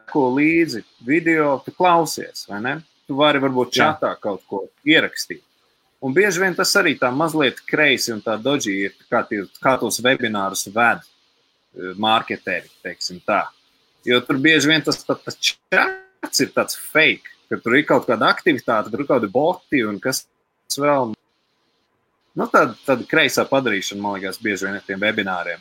Ko līdzi video, tu klausies, vai ne? Tu vari varbūt čatā kaut ko ierakstīt. Un bieži vien tas arī tā mazliet kreisi un tā dodži ir, kā tos webinārus ved marketeri, teiksim tā. Jo tur bieži vien tas čats ir tāds fake, ka tur ir kaut kāda aktivitāte, tur ir kaut kādi boti un kas vēl. Tāda kreisā padarīšana, man liekas, bieži vien ar tiem webināriem.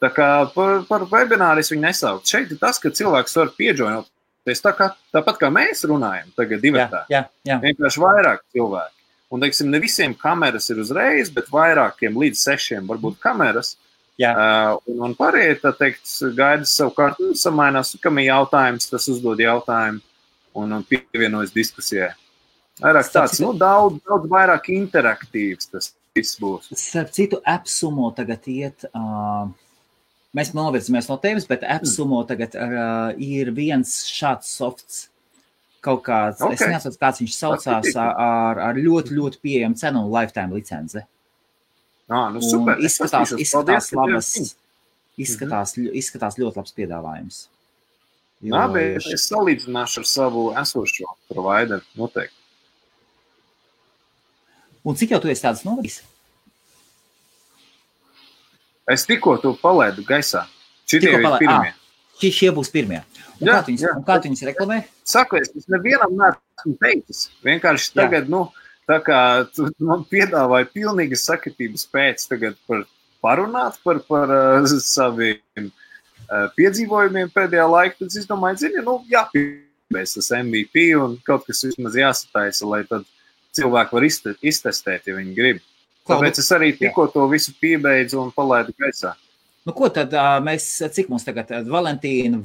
Tā kā par webināru es viņu nesaukt. Šeit ir tas, ka cilvēks var piejoinoties tāpat kā mēs runājam tagad divatā. Vienkārši vairāk cilvēki. Un, teiksim, ne visiem kameras ir uzreiz, bet vairākiem līdz 6 varbūt kameras. Un pārējie, tā teikt, gaida savukārt, samainās, kam ir jautājums, tas uzdod jautājumu un pievienojas diskusijai. Vairāk tāds, daudz vairāk interaktīvs tas viss būs. Starp citu, AppSumo tagad iet... Mēs novirzamies no tevis, bet AppSumo tagad ir viens šāds softs, kaut kāds, es nesaku, kāds viņš saucās, ar ļoti, ļoti pieejamu cenu un lifetime licenci. Super. Izskatās labas, izskatās ļoti labs piedāvājums. Bet es salīdzināšu ar savu esošo provideru noteikti. Un cik jau tu esi tāds novadījis? Es tikko to palaidu gaisā. Šitie ir pirmie. Šie būs pirmie. Un kā tu viņus reklamē? Saku, es nevienam neesmu teicis. Vienkārši tagad, tā kā tu man piedāvāji pilnīgas sakritības pēc tagad parunāt par saviem piedzīvojumiem pēdējā laikā, tad es domāju, jāpiebeidz tas MVP un kaut kas vismaz jāsataisa, lai tad cilvēki var iztestēt, ja viņi grib. Tāpēc es arī tikko to visu piebeidzu un palaidu gaisā. Nu, ko tad mēs, cik mums tagad Valentīna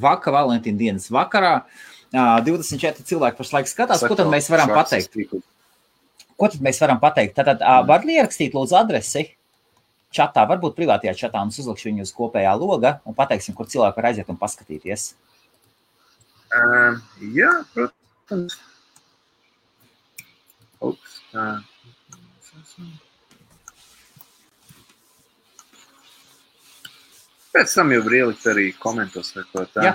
dienas vakarā, 24 cilvēki pašlaik skatās, ko tad mēs varam pateikt? Ko tad mēs varam pateikt? Tātad var ierakstīt lūdzu adresi čatā, varbūt privātajā čatā, un es uzlikšu viņu uz kopējā loga un pateiksim, kur cilvēki var aiziet un paskatīties. Jā, protams. Ups, Pēc tam jau var ielikt arī komentos vai ko tā. Jā.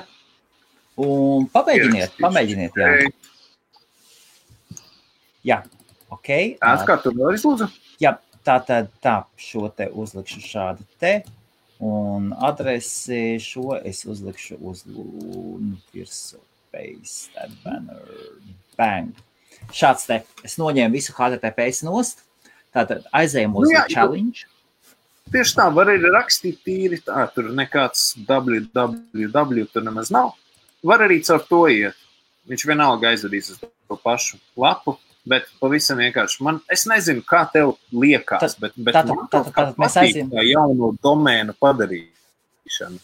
Un pamēģiniet, jā. Jā, ok. Kā tu vēlreiz lūdzu? Jā, tā, šo te uzlikšu šādu te, un adresi šo es uzlikšu uz virsmu, paste, that banner, bang. Šāds te, es noņēmu visu HTTPS nost, tātad aizējam uz challenge. Tieši tā, var arī rakstīt tīri tā, tur nekāds www tur nemaz nav. Var arī caur to iet. Viņš vienalga aizvedīs uz to pašu lapu, bet pavisam vienkārši. Es nezinu, kā tev liekas, bet man patīk tā jauno domēnu padarīšanu.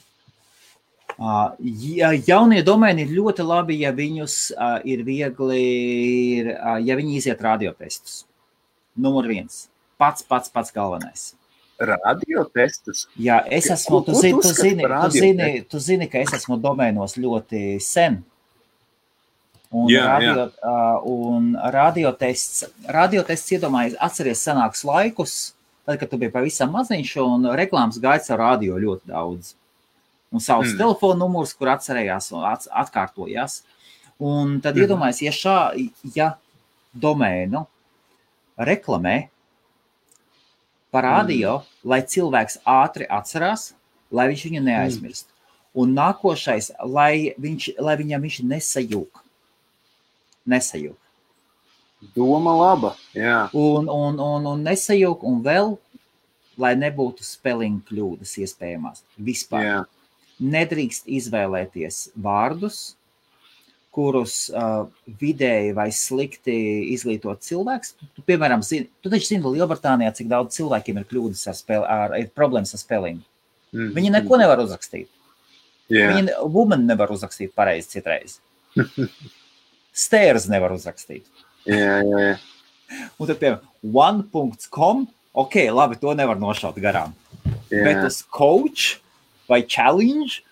Jaunie domēni ir ļoti labi, ja viņus ir viegli, ja viņi iziet radiotestus. Numur 1. Pats galvenais. Radiotestus? Jā, es esmu, tu zini, ka es esmu domēnos ļoti sen. Un radiotests iedomājies, atceries senākus laikus, tad, kad tu biji pavisam maziņš un reklāmas gaits ar radio ļoti daudz. Un savus telefonu numurs, kur atcerējās un atkārtojās. Un tad iedomājies, ja domēnu reklamē par radio, lai cilvēks ātri atcerās, lai viņš viņu neaizmirst. Un nākošais, lai viņam viņš nesajūk. Doma laba, jā. Un nesajūk, un vēl, lai nebūtu spelling kļūdas iespējamās. Vispār. Jā. Nedrīkst izvēlēties vārdus, kurus vidēji vai slikti izglītot cilvēks. Tu, piemēram, tu taču zini Lielbritānijā, cik daudz cilvēkiem ir kļūdas ir problēmas ar spellingu. Viņi neko nevar uzrakstīt. Yeah. Viņi woman nevar uzrakstīt pareizi citreiz. Stairs nevar uzrakstīt. Yeah. Un tad, piemēram, one.com, ok, labi, to nevar nošaut garām. Yeah. Bet uz coach vai challenge,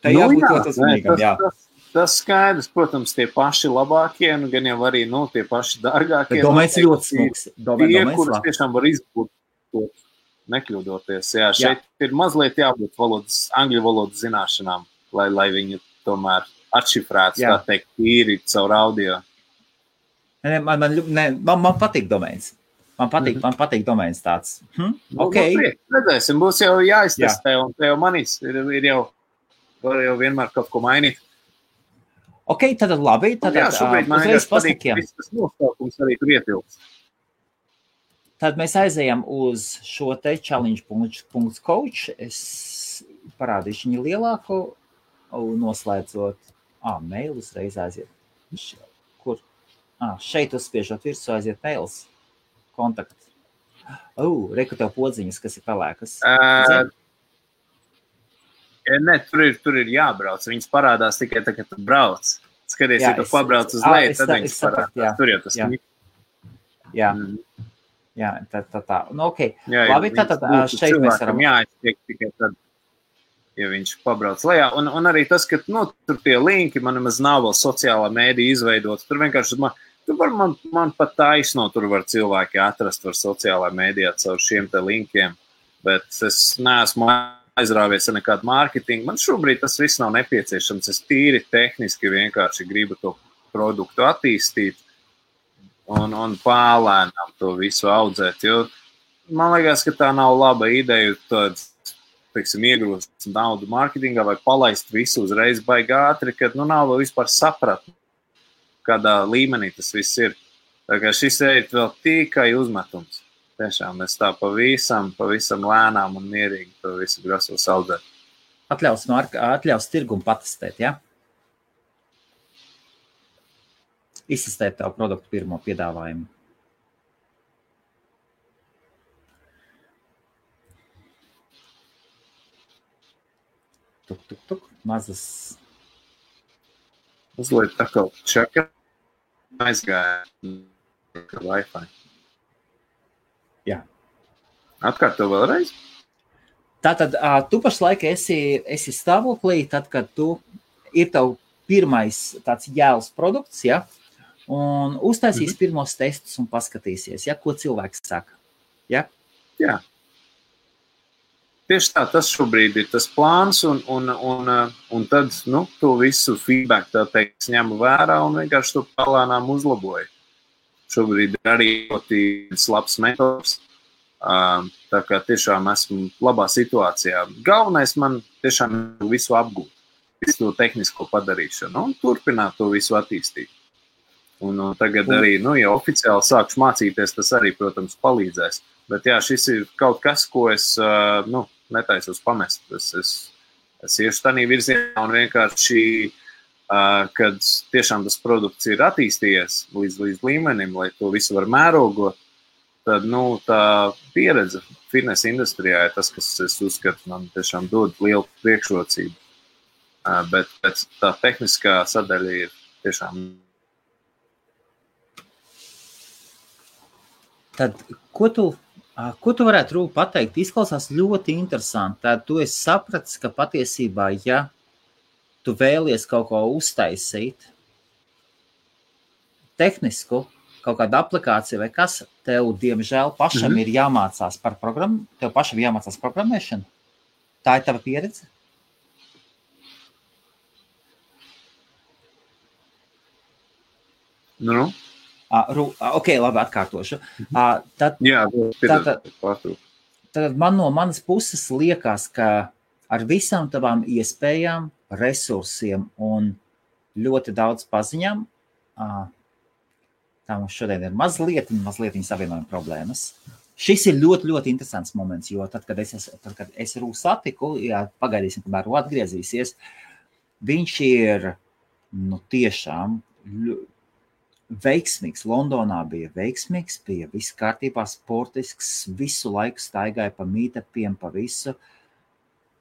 tā jābūt ļoti uzmanīgam, jā. Tas skaidrs, protams, tie paši labākie, gan jau arī, tie paši dārgākie. Domēns ļoti smuks. Tie, kurus tiešām var izbūt nekļūdoties. Jā, šeit ir mazliet jābūt angļu valodas zināšanām, lai viņu tomēr atšifrētu, tā teikt, tīri caur audio. Man patīk domēns. Man patīk domēns tāds. Okay. Redzēsim, būs jau jāiztestē, un te jau manīs ir jau, var jau vienmēr kaut ko mainīt. Ok, tad labi. Tad šobrīd man vienkārši patīk, viss tas nosaukums arī tur ietilps. Tad mēs aizējam uz šo te challenge.coach. Es parādīšu viņu lielāko, noslēdzot. Mail uzreiz aiziet. Kur? Šeit uzspiežot virsū aiziet mails. Kontakt. Reku tev podziņas, kas ir pelēkas. Ne, tur ir jābrauc. Viņas parādās tikai tā, kad tu brauc. Skaties, ja tu pabrauc uz leju, tad viņas parādās. Tur jau tas ir. Jā, tā. Nu, ok. Jā, labi, tad šeit mēs varam. Jāiztiek tikai tad, ja viņš pabrauc lejā. Un arī tas, ka, tur tie linki, man nemaz nav vēl sociālā mēdī izveidots. Tur vienkārši man pat taisno, tur var cilvēki atrast var sociālā mēdījā caur šiem te linkiem, bet es neesmu aizrāvies ar nekādu mārketingu. Man šobrīd tas viss nav nepieciešams. Es tīri tehniski vienkārši gribu to produktu attīstīt un pālēnām to visu audzēt, jo man liekas, ka tā nav laba ideja iegrūst naudu mārketingā vai palaist visu uzreiz baigi ātri, kad nav vēl vispār sapratni, kādā līmenī tas viss ir. Tā kā šis ir vēl tikai uzmetums. Tiešām es tā pavisam lēnām un mierīgi to visu grasos audzēt. Atļaus tirgumu patestēt, ja? Izsistēt tavu produktu pirmo piedāvājumu. Tuk. Mazas. Uzliet tā kā čeka aizgāja Wi-Fi. Jā. Atkārto vēlreiz? Tātad tu pašlaik esi stāvoklī, tad, kad tu ir tavu pirmais tāds jēls produkts, ja? Un uztaisīs pirmos testus un paskatīsies, ja? Ko cilvēks saka. Ja? Jā. Tieši tā, tas šobrīd ir tas plāns, un tad, to visu feedback, tā teikt, ņemu vērā un vienkārši to palānām uzlaboju. Šobrīd ir arī ļoti labs metods, tā kā tiešām esmu labā situācijā. Galvenais man tiešām visu apgūt, visu to tehnisko padarīšanu un turpināt to visu attīstīt. Un tagad arī, ja oficiāli sākšu mācīties, tas arī, protams, palīdzēs. Bet jā, šis ir kaut kas, ko es, netaisos pamest. Es iešu tādā virzienā un vienkārši, kad tiešām tas produkts ir attīstījies līdz līmenim, lai to visu var mērogot, tad, tā pieredze fitness industrijā ir tas, kas es uzskatu, man tiešām dod lielu priekšrocību. Bet tā tehniskā sadaļa ir tiešām. Tad, ko tu varētu pateikt? Izklausās ļoti interesanti. Tad tu esi sapratis, ka patiesībā, ja tu vēlies kaut ko uztaisīt, tehnisku, kaut kādu aplikāciju vai kas, tev, diemžēl, pašam ir jāmācās par programmu, tev pašam jāmācās programmēšanu. Tā ir tava pieredze? Ok, labi, atkārtošu. Tad man no manas puses liekas, ka ar visām tavām iespējām, resursiem un ļoti daudz paziņām, tā mums šodien ir mazliet savienojuma problēmas. Šis ir ļoti, ļoti interesants moments, jo tad, kad es Rū satiku, pagaidīsim, kamēr Rū atgriezīsies, viņš ir, tiešām veiksmīgs. Londonā bija veiksmīgs, bija viss kārtībā, sportisks, visu laiku staigāja pa meetupiem, pa visu.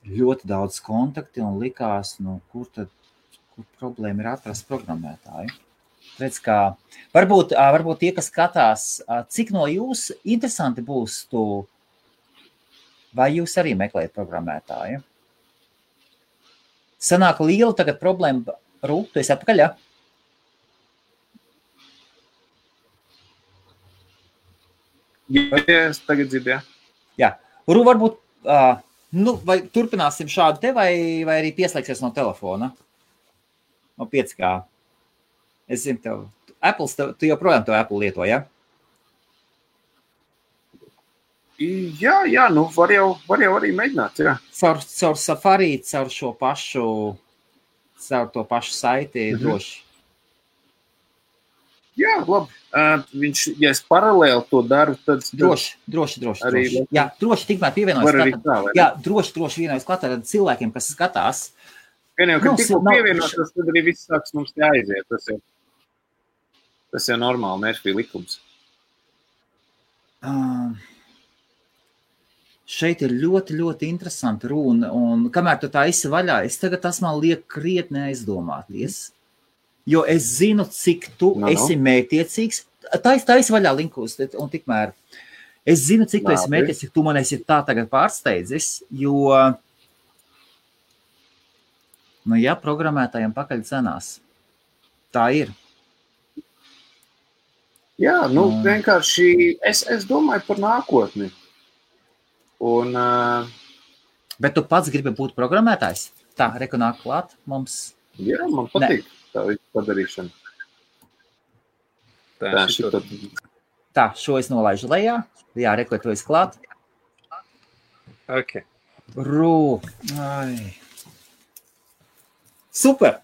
Ļoti daudz kontakti un likās, kur problēma ir atrast programmētāju. Redz, kā varbūt tie, kas skatās, cik no jūs interesanti būs vai jūs arī meklējat programmētāju? Sanāk liela tagad problēma. Rū, tu esi atpakaļ, ja? Jā, es tagad dzirdu, jā. Jā. Rū, varbūt, vai turpināsim šādu te, vai arī pieslēgsies no telefona? No 5G. Es zinu, tu joprojām to Apple lieto, ja? Jā, var jau arī mēģināt, jā. Caur Safari, caur to pašu saiti droši. Jā, labi. Ja es paralēli to daru, tad... Droši. Jā, droši tikmēr pievienojas klāt. Jā, droši vienojas klāt ar cilvēkiem, kas skatās. Gan jau, kad tikko pievienotas, tad arī viss sāks mums te aiziet. Tas jau normāli, Mērfī likums. Šeit ir ļoti, ļoti interesanti runa, un kamēr tu tā esi vaļā, tas man liek krietni aizdomāties. Jo es zinu, cik tu esi mētiecīgs. Tā esi vaļā linkus, un tikmēr es zinu, cik tu esi mētiecīgs, cik tu man esi tā tagad pārsteidzis, jo, programmētājiem pakaļ cenās. Tā ir. Jā, vienkārši es domāju par nākotni. Bet tu pats gribi būt programmētājs? Tā, reku nāk klāt mums. Jā, man patīk. Tā visu padarīšana. Tā, šo es nolaižu lejā. Jā, reku, tu esi klāt. Ok. Rū. Super.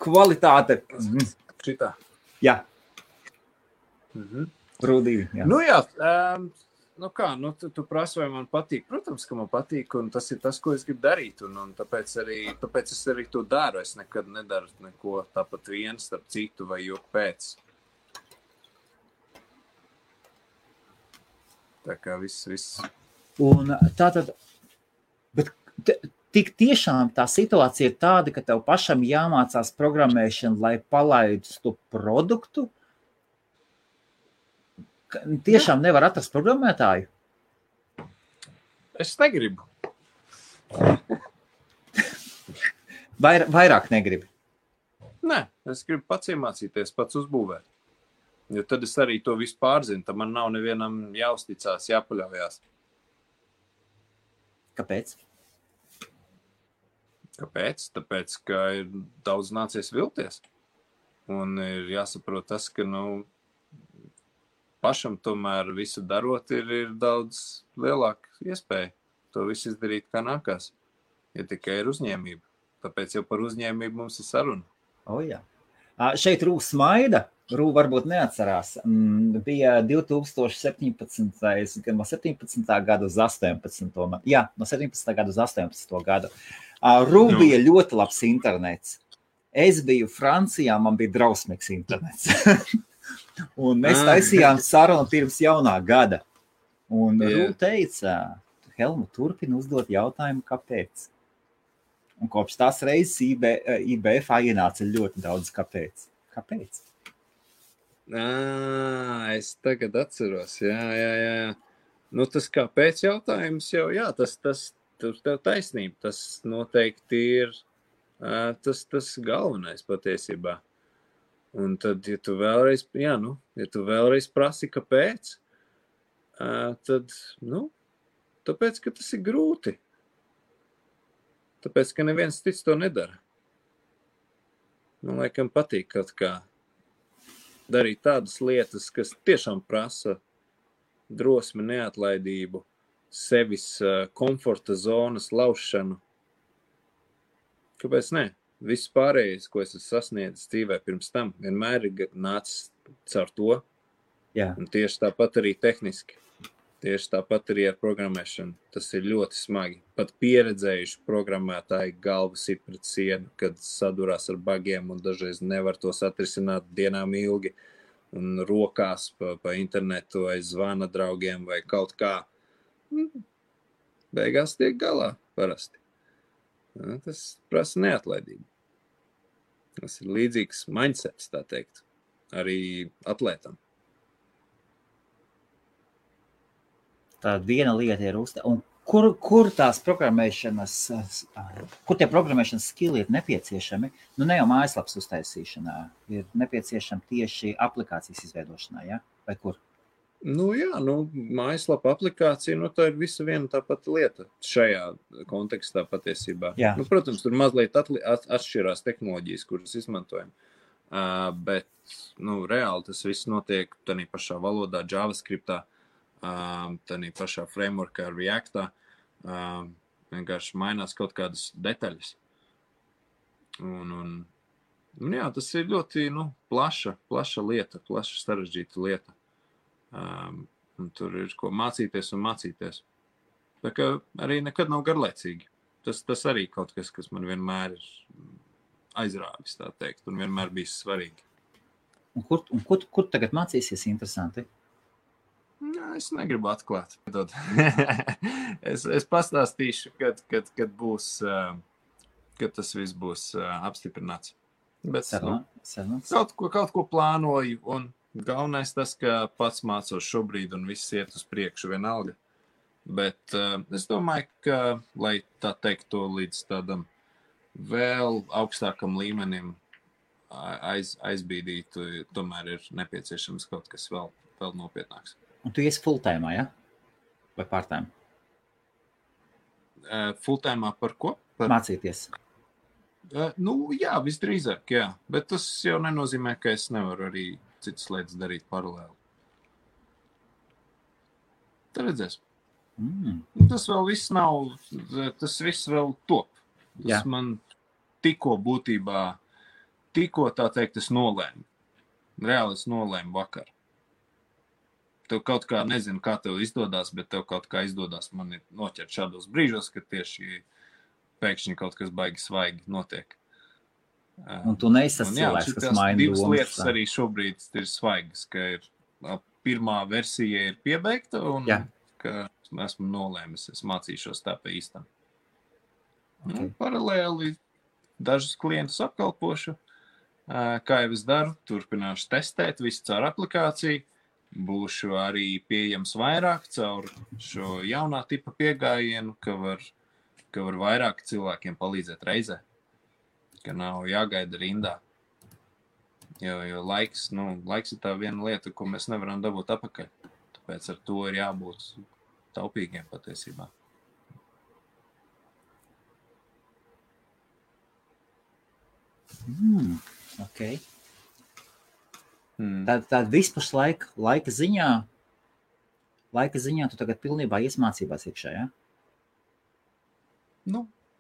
Kvalitāte. Šitā. Jā. Rū 2. Jā. Jā, Nu kā, tu prasi, vai man patīk. Protams, ka man patīk, un tas ir tas, ko es gribu darīt, un tāpēc es arī to daru. Es nekad nedaru neko tāpat viens starp citu vai joku pēc. Tā kā viss. Un tātad, bet tik tiešām tā situācija ir tāda, ka tev pašam jāmācās programmēšana, lai palaidus to produktu? Tiešām nevar atrast programmētāju? Es negribu. Vairāk negribi? Nē, es gribu pats iemācīties, pats uzbūvēt. Jo tad es arī to visu pārzinu, tad man nav nevienam jāuzticās, jāpaļaujās. Kāpēc? Kāpēc? Tāpēc, ka ir daudz nācies vilties. Un ir jāsaprot tas, ka, pašam tomēr visu darot ir daudz lielāka iespēja to visu izdarīt, kā nākās. Ja tikai ir uzņēmība. Tāpēc jau par uzņēmību mums ir saruna. Jā. Šeit Rū smaida. Rū varbūt neatcerās. Bija 2017. Gan no 17. gada uz 18. Jā, no 17. gada uz 18. gadu. Rū bija ļoti labs internets. Es biju Francijā, man bija drausmīgs internets. Un mēs taisījām sarunu pirms jaunā gada. Un Rū teica, Helmu, turpini uzdot jautājumu, kāpēc? Un kopš tās reizes IBF ienāca ļoti daudz kāpēc. Kāpēc? Es tagad atceros, jā. Tas kāpēc jautājums jau, jā, tas tev taisnība. Tas noteikti ir tas galvenais patiesībā. Un tad, ja tu vēlreiz prasi, kāpēc, tad, tāpēc, ka tas ir grūti. Tāpēc, ka neviens cits to nedara. Man laikam patīk kaut kā darīt tādas lietas, kas tiešām prasa drosmi, neatlaidību, sevis komforta zonas laušanu. Kāpēc ne? Viss pārējais, ko es esmu sasniedzis dzīvē pirms tam, vienmēr ir nācis caur to. Jā. Un tieši tāpat arī tehniski. Tieši tāpat arī ar programmēšanu. Tas ir ļoti smagi. Pat pieredzējuši programmētāji galvas ir pret sienu, kad sadurās ar bagiem un dažreiz nevar tos atrisināt dienām ilgi un rokās pa internetu vai zvana draugiem vai kaut kā. Beigās tiek galā parasti. Tas prasa neatlaidību. Tas ir līdzīgs mindsets, tā teikt, arī atlētam. Tā viena lieta ir un kur tās programmēšanas, kur tie programmēšanas skilli ir nepieciešami? Ne jau mājaslapas uztaisīšanā, ir nepieciešami tieši aplikācijas izveidošanā, ja? Vai kur? Mājaslapa aplikācija, tā ir visa viena tā pati lieta šajā kontekstā patiesībā. Protams, tur mazliet atšķirās tehnoloģijas, kuras izmantojam, bet, reāli tas viss notiek tādā pašā valodā, JavaScriptā, tādā pašā frameworkā, Reactā, vienkārši mainās kaut kādas detaļas. Un tas ir ļoti, plaša lieta, plaša sarežģīta lieta. Un tur ir ko mācīties un mācīties. Tā kā arī nekad nav garlaicīgi. Tas arī kaut kas man vienmēr ir aizrāvis, tā teikt, un vienmēr bijis svarīgi. Un kur tagad mācīsies interesanti? Es negribu atklāt. es pastāstīšu, kad būs, kad tas viss būs apstiprināts. Bet kaut ko plānoju, un galvenais tas, ka pats mācos šobrīd un viss iet uz priekšu vienalga. Bet es domāju, ka, lai tā teikt to līdz tādam vēl augstākam līmenim aizbīdītu, tomēr ir nepieciešams kaut kas vēl nopietnāks. Un tu iesi full-time, ja? Vai part-time? Full-time par ko? Mācīties. Jā, visdrīzāk, jā. Bet tas jau nenozīmē, ka es nevaru arī citas lietas darīt paralēli. Tad redzēs. Tas vēl viss nav, tas viss vēl top. Tas man tikko tā teikt, es nolēmu. Reāli es nolēmu vakar. tev kaut kā, nezinu, kā tev izdodas, bet tev kaut kā izdodas man noķert šādos brīžos, kad tieši pēkšņi kaut kas baigi svaigi notiek. Un tu neesi tas cilvēks, kas maina divas domas. Lietas arī šobrīd ir svaigas, ka pirmā versija ir piebeigta un ka esmu nolēmis, es mācīšos tā pa īstam. Okay. Paralēli dažus klientus apkalpošu, kā jau es daru, turpināšu testēt visu caur aplikāciju, būšu arī pieejams vairāk caur šo jaunā tipa piegājienu, ka var vairāk cilvēkiem palīdzēt reizē, ka nav jāgaida rindā. Jo laiks ir tā viena lieta, ko mēs nevaram dabūt atpakaļ. Tāpēc ar to ir jābūt taupīgiem patiesībā. Okay. Tad vispār laika ziņā tu tagad pilnībā iesmācībās iekšā, ja?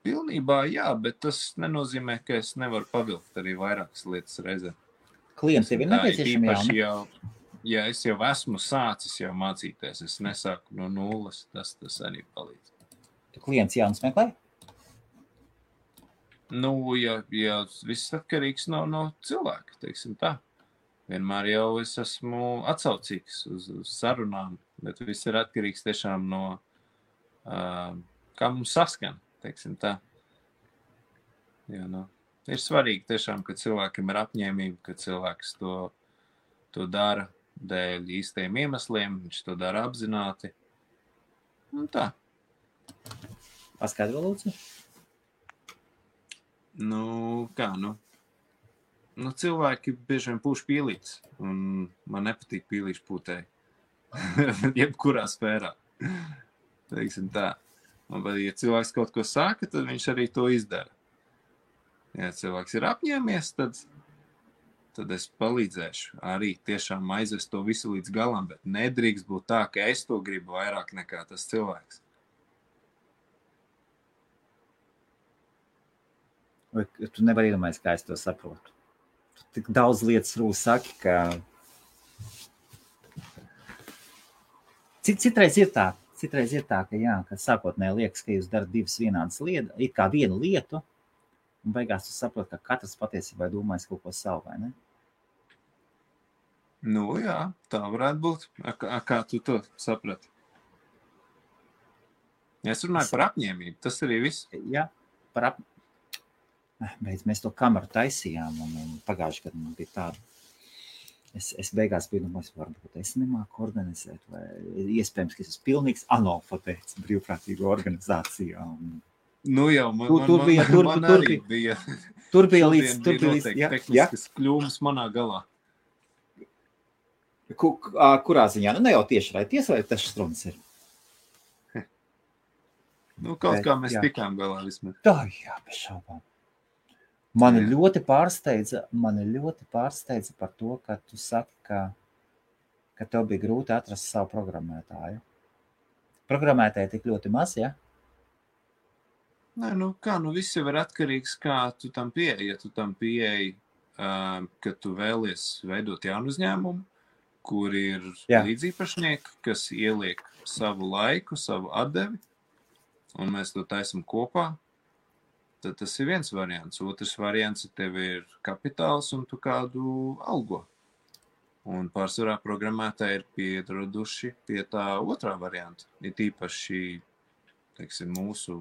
Pilnībā jā, bet tas nenozīmē, ka es nevaru pavilkt arī vairākas lietas reizē. Klients tev ir nepieciešami jauni? Ja es jau esmu sācis jau mācīties, es nesāku no nulles, tas arī palīdz. Tu klients jauns meklē? Ja viss atkarīgs no cilvēka, teiksim tā. Vienmēr jau es esmu atsaucīgs uz sarunām, bet viss ir atkarīgs tiešām no, kā mums saskan, teiksim tā. Ir svarīgi tiešām, ka cilvēkam ir apņēmība, ka cilvēks to dara dēļ īstajiem iemesliem, viņš to dara apzināti. Tā. Paskaidro, lūdzu? Cilvēki bieži vien pūš pīlītes, un man nepatīk pīlīšu pūtēji. Jebkurā sfērā. Teiksim tā. Bet, ja cilvēks kaut ko saka, tad viņš arī to izdara. Ja cilvēks ir apņēmies, tad es palīdzēšu arī tiešām aizvest to visu līdz galam, bet nedrīkst būt tā, ka es to gribu vairāk nekā tas cilvēks. Vai tu nevari iedomājies, kā es to saprotu? Tu tik daudz lietas rūs saki, ka citreiz ir tā, ka sākotnēji liekas, ka jūs darat divas vienādas lietas, it kā vienu lietu, un beigās tu saproti, ka katrs patiesībā domājas kaut ko savu, vai ne? Jā, tā varētu būt. Kā tu to saprati? Es runāju par apņēmību, tas arī viss. Jā, par apņēmību. Mēs to kameru taisījām, un pagājuši, kad man bija tāda. Es beigās biju domājis, varbūt es nemāku organizēt, vai iespējams, ka es esmu pilnīgs analfabēts brīvprātīgo organizācijā. Tur bija līdz tehniskas kļūmes manā galā. Kurā ziņā? Ne jau tieši vai tas struns ir? Kaut kā mēs tikām galā vismaz. Tā, jā, bez šaubām. Mani ļoti pārsteidza par to, ka tu saki, ka tev bija grūti atrast savu programmētāju. Programmētāji tik ļoti maz, ja? Viss jau ir atkarīgs, kā tu tam pieeji. Ja tu tam pieeji, ka tu vēlies veidot jaunu uzņēmumu, kur ir līdzīpašnieki, kas ieliek savu laiku, savu atdevi, un mēs to taisam kopā, tad tas ir viens variants. Otrs variants, ja tev ir kapitāls un tu kādu algo. Un pārsvarā programmētāji ir pieraduši pie tā otrā varianta. Ir tīpaši, teiksim, mūsu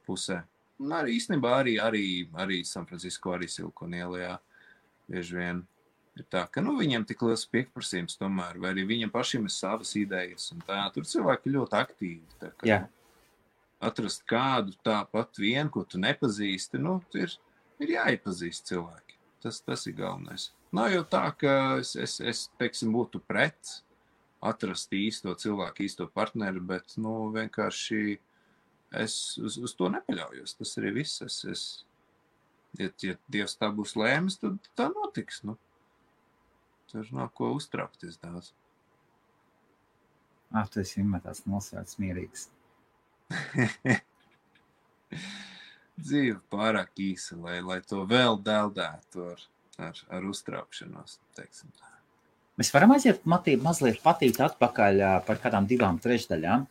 pusē. Un arī īstenībā arī San Francisco, arī Silikona ielā bieži vien ir tā, ka viņiem tik liels pieprasījums tomēr, vai arī viņiem pašiem ir savas idejas. Un tā, tur cilvēki ļoti aktīvi. Tā, ka, atrast kādu tāpat vienu, ko tu nepazīsti, ir jāiepazīst cilvēki. Tas ir galvenais. Nav jau tā, ka es teiksim, būtu pret atrast īsto cilvēku, īsto partneri, bet, vienkārši es uz to nepaļaujos. Tas arī viss. Ja Dievs tā būs lēmis, tad tā notiks, Tur nav ko uztraukties daudz. Tu esi vienmēr tāds nosvērts mierīgs. Dzīve pārāk īsa, lai to vēl deldētu ar uztraukšanos, teiksim tā. Mēs varam aiziet mazliet patīt atpakaļ par kādām 2/3.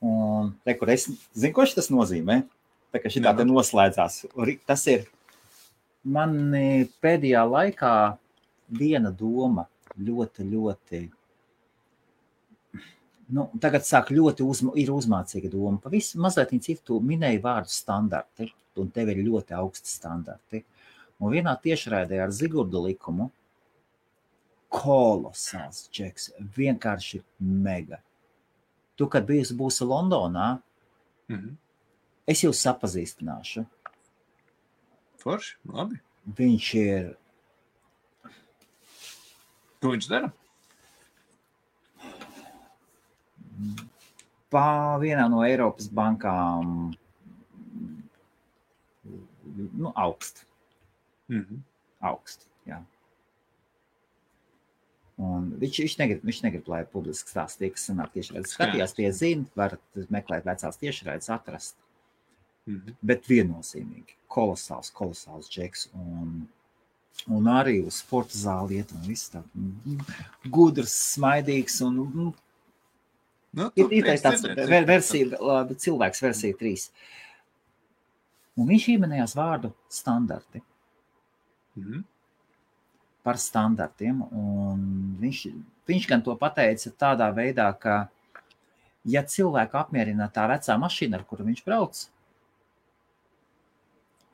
Un kur es zinu, ko tas nozīmē. Tā kā šitā te noslēdzās. Tas ir man pēdējā laikā viena doma ļoti, tagad sāk ir uzmācīga doma. Pavisam mazliet citu tu minēji vārdu standarti, un tev ir ļoti augsti standarti. Un vienā tiešraidē ar Zigurdu Likumu kolosāls džeks, vienkārši mega. Tu, kad būsi Londonā, es jūs sapazīstināšu. Forši, labi. Viņš ir... Ko viņš dara? Vienā no Eiropas bankām augst. Augst, jā. Un viņš negrib, lai publiski stāsts tie, kas sanāk tiešraides skatījās, tie zina, var meklēt vecās tiešraides atrast. Bet viennozīmīgi, kolosāls džeks un arī uz sporta zāli iet un viss tā gudrs, smaidīgs un ir tāds cilvēks versija 3. Un viņš ieminējās vārdu standarti. Par standartiem, un viņš gan to pateica tādā veidā, ka ja cilvēku apmierina tā vecā mašīna, ar kuru viņš brauc,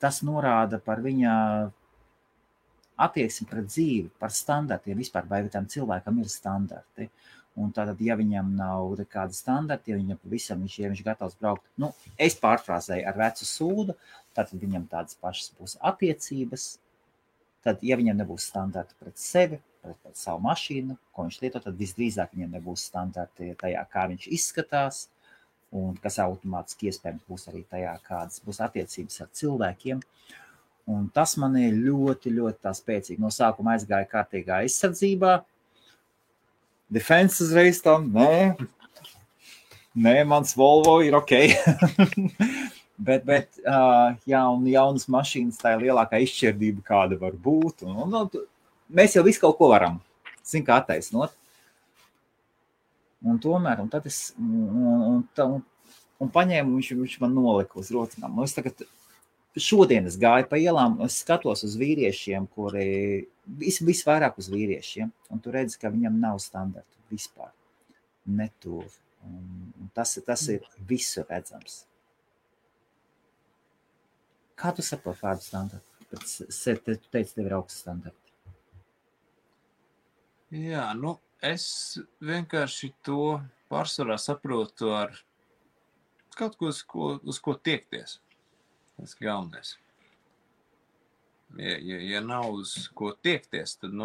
tas norāda par viņa attieksmi pret dzīvi, par standartiem vispār, vai tam cilvēkam ir standarti. Un tātad, ja viņam nav kāda standarti, ja viņam pavisam viņš gatavs braukt, es pārfrāzēju ar vecu sūdu, tātad viņam tādas pašas būs attiecības. Tad, ja viņam nebūs standarti pret sevi, pret savu mašīnu, ko viņš lieto, tad visdrīzāk viņam nebūs standarti tajā, kā viņš izskatās, un kas automātiski iespējams būs arī tajā, kādas būs attiecības ar cilvēkiem. Un tas man ir ļoti tā spēcīgi. No sākuma aizgāja kārtīgā aizsardzībā. Defense uzreiz tam, nē, mans Volvo ir ok. Bet jaunas mašīnas, tā ir lielākā izšķirdība, kāda var būt. Un mēs jau visu kaut ko varam, kā attaisnot. Un tomēr, un tad es paņēmu, viņš man nolika uz rocinām. Es tagad šodien es gāju pa ielām, es skatos uz vīriešiem, kuri visvairāk uz vīriešiem, un tu redzi, ka viņam nav standartu vispār. Netuvu. Un tas ir visu redzams. Kā tu saproti vārdu standarti? Tu teici, tev ir augsts standarti. Jā, es vienkārši to pārsvarā saprotu ar kaut ko, uz ko tiekties. Tas galvenais. Ja nav uz ko tiekties, tad,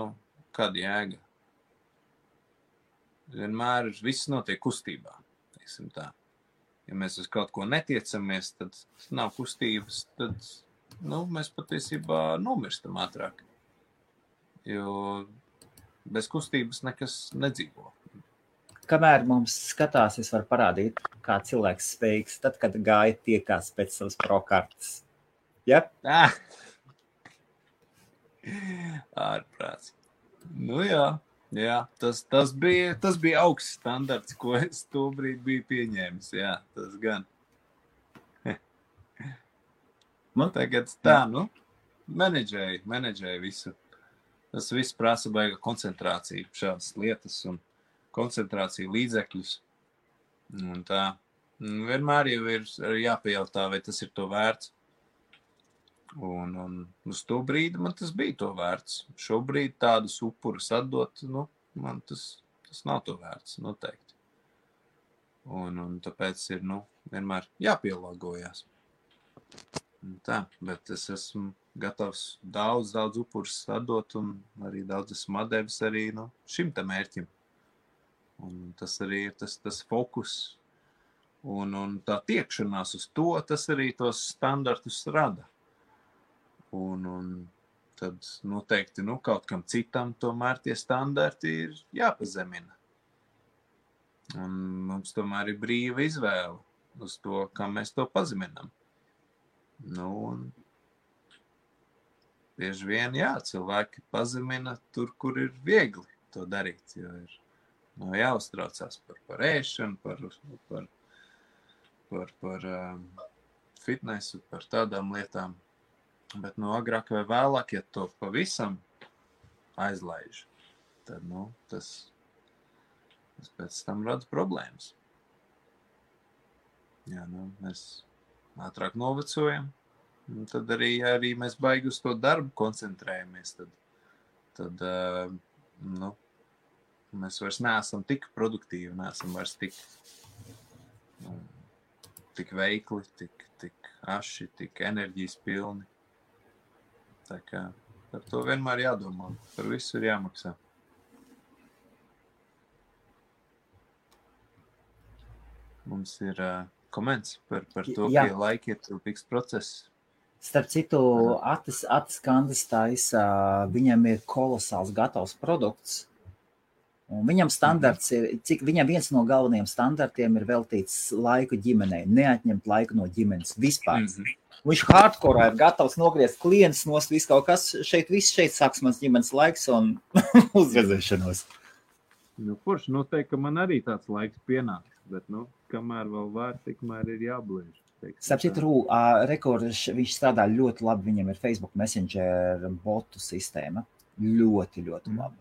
kāda jēga? Vienmēr viss notiek kustībā, teiksim tā. Ja mēs uz kaut ko netiecamies, tad nav kustības, tad mēs patiesībā nomirstam ātrāk. Jo bez kustības nekas nedzīvo. Kamēr mums skatās, es varu parādīt, kā cilvēks spējīgs, tad, kad gāja tiekās pēc savas prokartes. Ja? Ārprāts. Jā, tas bija augsts standarts, ko es tobrīd biju pieņēmis. Jā, tas gan. Tagad tā, menedžēju visu. Tas viss prasa baiga koncentrāciju, šādas lietas un koncentrāciju līdzekļus. Un tā, vienmēr jau ir jāpajautā, vai tas ir to vērts. Un uz to brīdi man tas bija to vērts. Šobrīd tādus upurus atdot, man tas nav to vērts, noteikti. Un tāpēc ir, vienmēr jāpielāgojās. Tā, bet es esmu gatavs daudz upurus atdot un arī daudz esmu atdevis arī šim te mērķim. Un tas arī ir tas fokus un tā tiekšanās uz to, tas arī tos standartus rada. Un tad noteikti kaut kam citam tomēr tie standarti ir jāpazemina. Un mums tomēr ir brīva izvēle uz to, kā mēs to pazeminam. Un bieži vien, cilvēki pazemina tur, kur ir viegli. to darīt, jo ir jāuztraucās par ēšanu, par fitnesu, par tādām lietām. Bet, agrāk vai vēlāk, ja to pavisam aizlaiž, tad, tas pēc tam rada problēmas. Jā, mēs ātrāk novecojam, un tad arī mēs baigi uz to darbu koncentrējamies, tad mēs vairs neesam tik produktīvi, neesam vairs tik veikli, tik aši, tik enerģijas pilni. Tā kā par to vienmēr jādomā, par visu ir jāmaksā. Mums ir koments par to, ka laiki ir tilpīgs process. Starp citu, Atis Kandis taisa, viņam ir kolosāls gatavs produkts. Un viņam standarts viņam viens no galvenajiem standartiem ir veltīts laiku ģimenei, neatņemt laiku no ģimenes vispār. Viņš hardcore ir gatavs nogriezt klientus nost visu kaut kas. Šeit sāks mans ģimenes laiks un uzredzēšanos. Forši noteikti, ka man arī tāds laiks pienāks, bet, kamēr vēl var, tikmēr ir jābliež. Starp citu, viņš strādā ļoti labi, viņam ir Facebook Messenger botu sistēma. Ļoti, ļoti labi.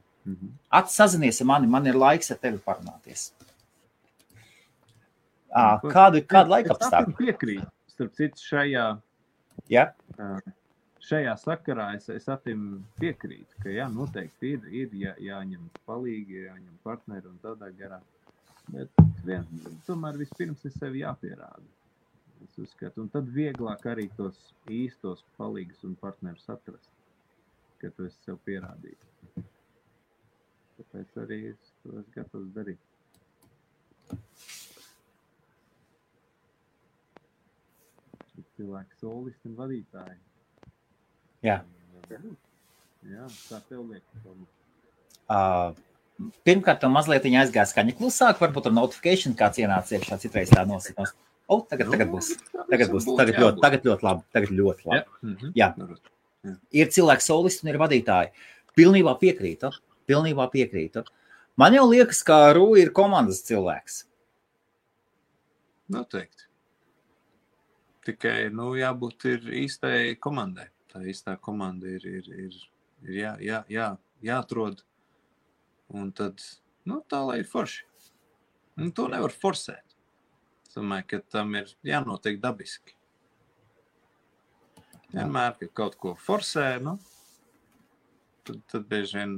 Sazinies ar mani, man ir laiks ar tevi parunāties. Kādu laiku apstākļu? Es piekrītu. Starp citu, šajā sakarā es atim piekrītu, ka noteikti ir jāņem palīgi, jāņem partneri un tādā garā. Bet tomēr vispirms ir sevi jāpierāda. Es uzskatu, un tad vieglāk arī tos īstos palīgus un partnerus atrast, ka tu esi sev pierādījis. Tāpēc arī es to esmu gatavs darīt. Cilvēki solisti un vadītāji. Jā. Jā, tā tev liekas. Pirmkārt, tev mazliet aizgāja skaņa klusāk, varbūt ar notification kāds ienāca iekšā, citreiz tā nosakās. Tagad būs. Tagad ļoti labi. Jā. Ir cilvēki solisti un ir vadītāji. Pilnībā piekrītu. Man jau liekas, ka Rū ir komandas cilvēks. Noteikti. Tikai, jābūt ir īstai komandai. Tā īstā komanda ir jāatrod. Un tad, tā lai ir forši. Un to nevar forsēt. Es domāju, ka tam ir jānotiek dabiski. Vienmēr, ka kaut ko forsē, tad bieži vien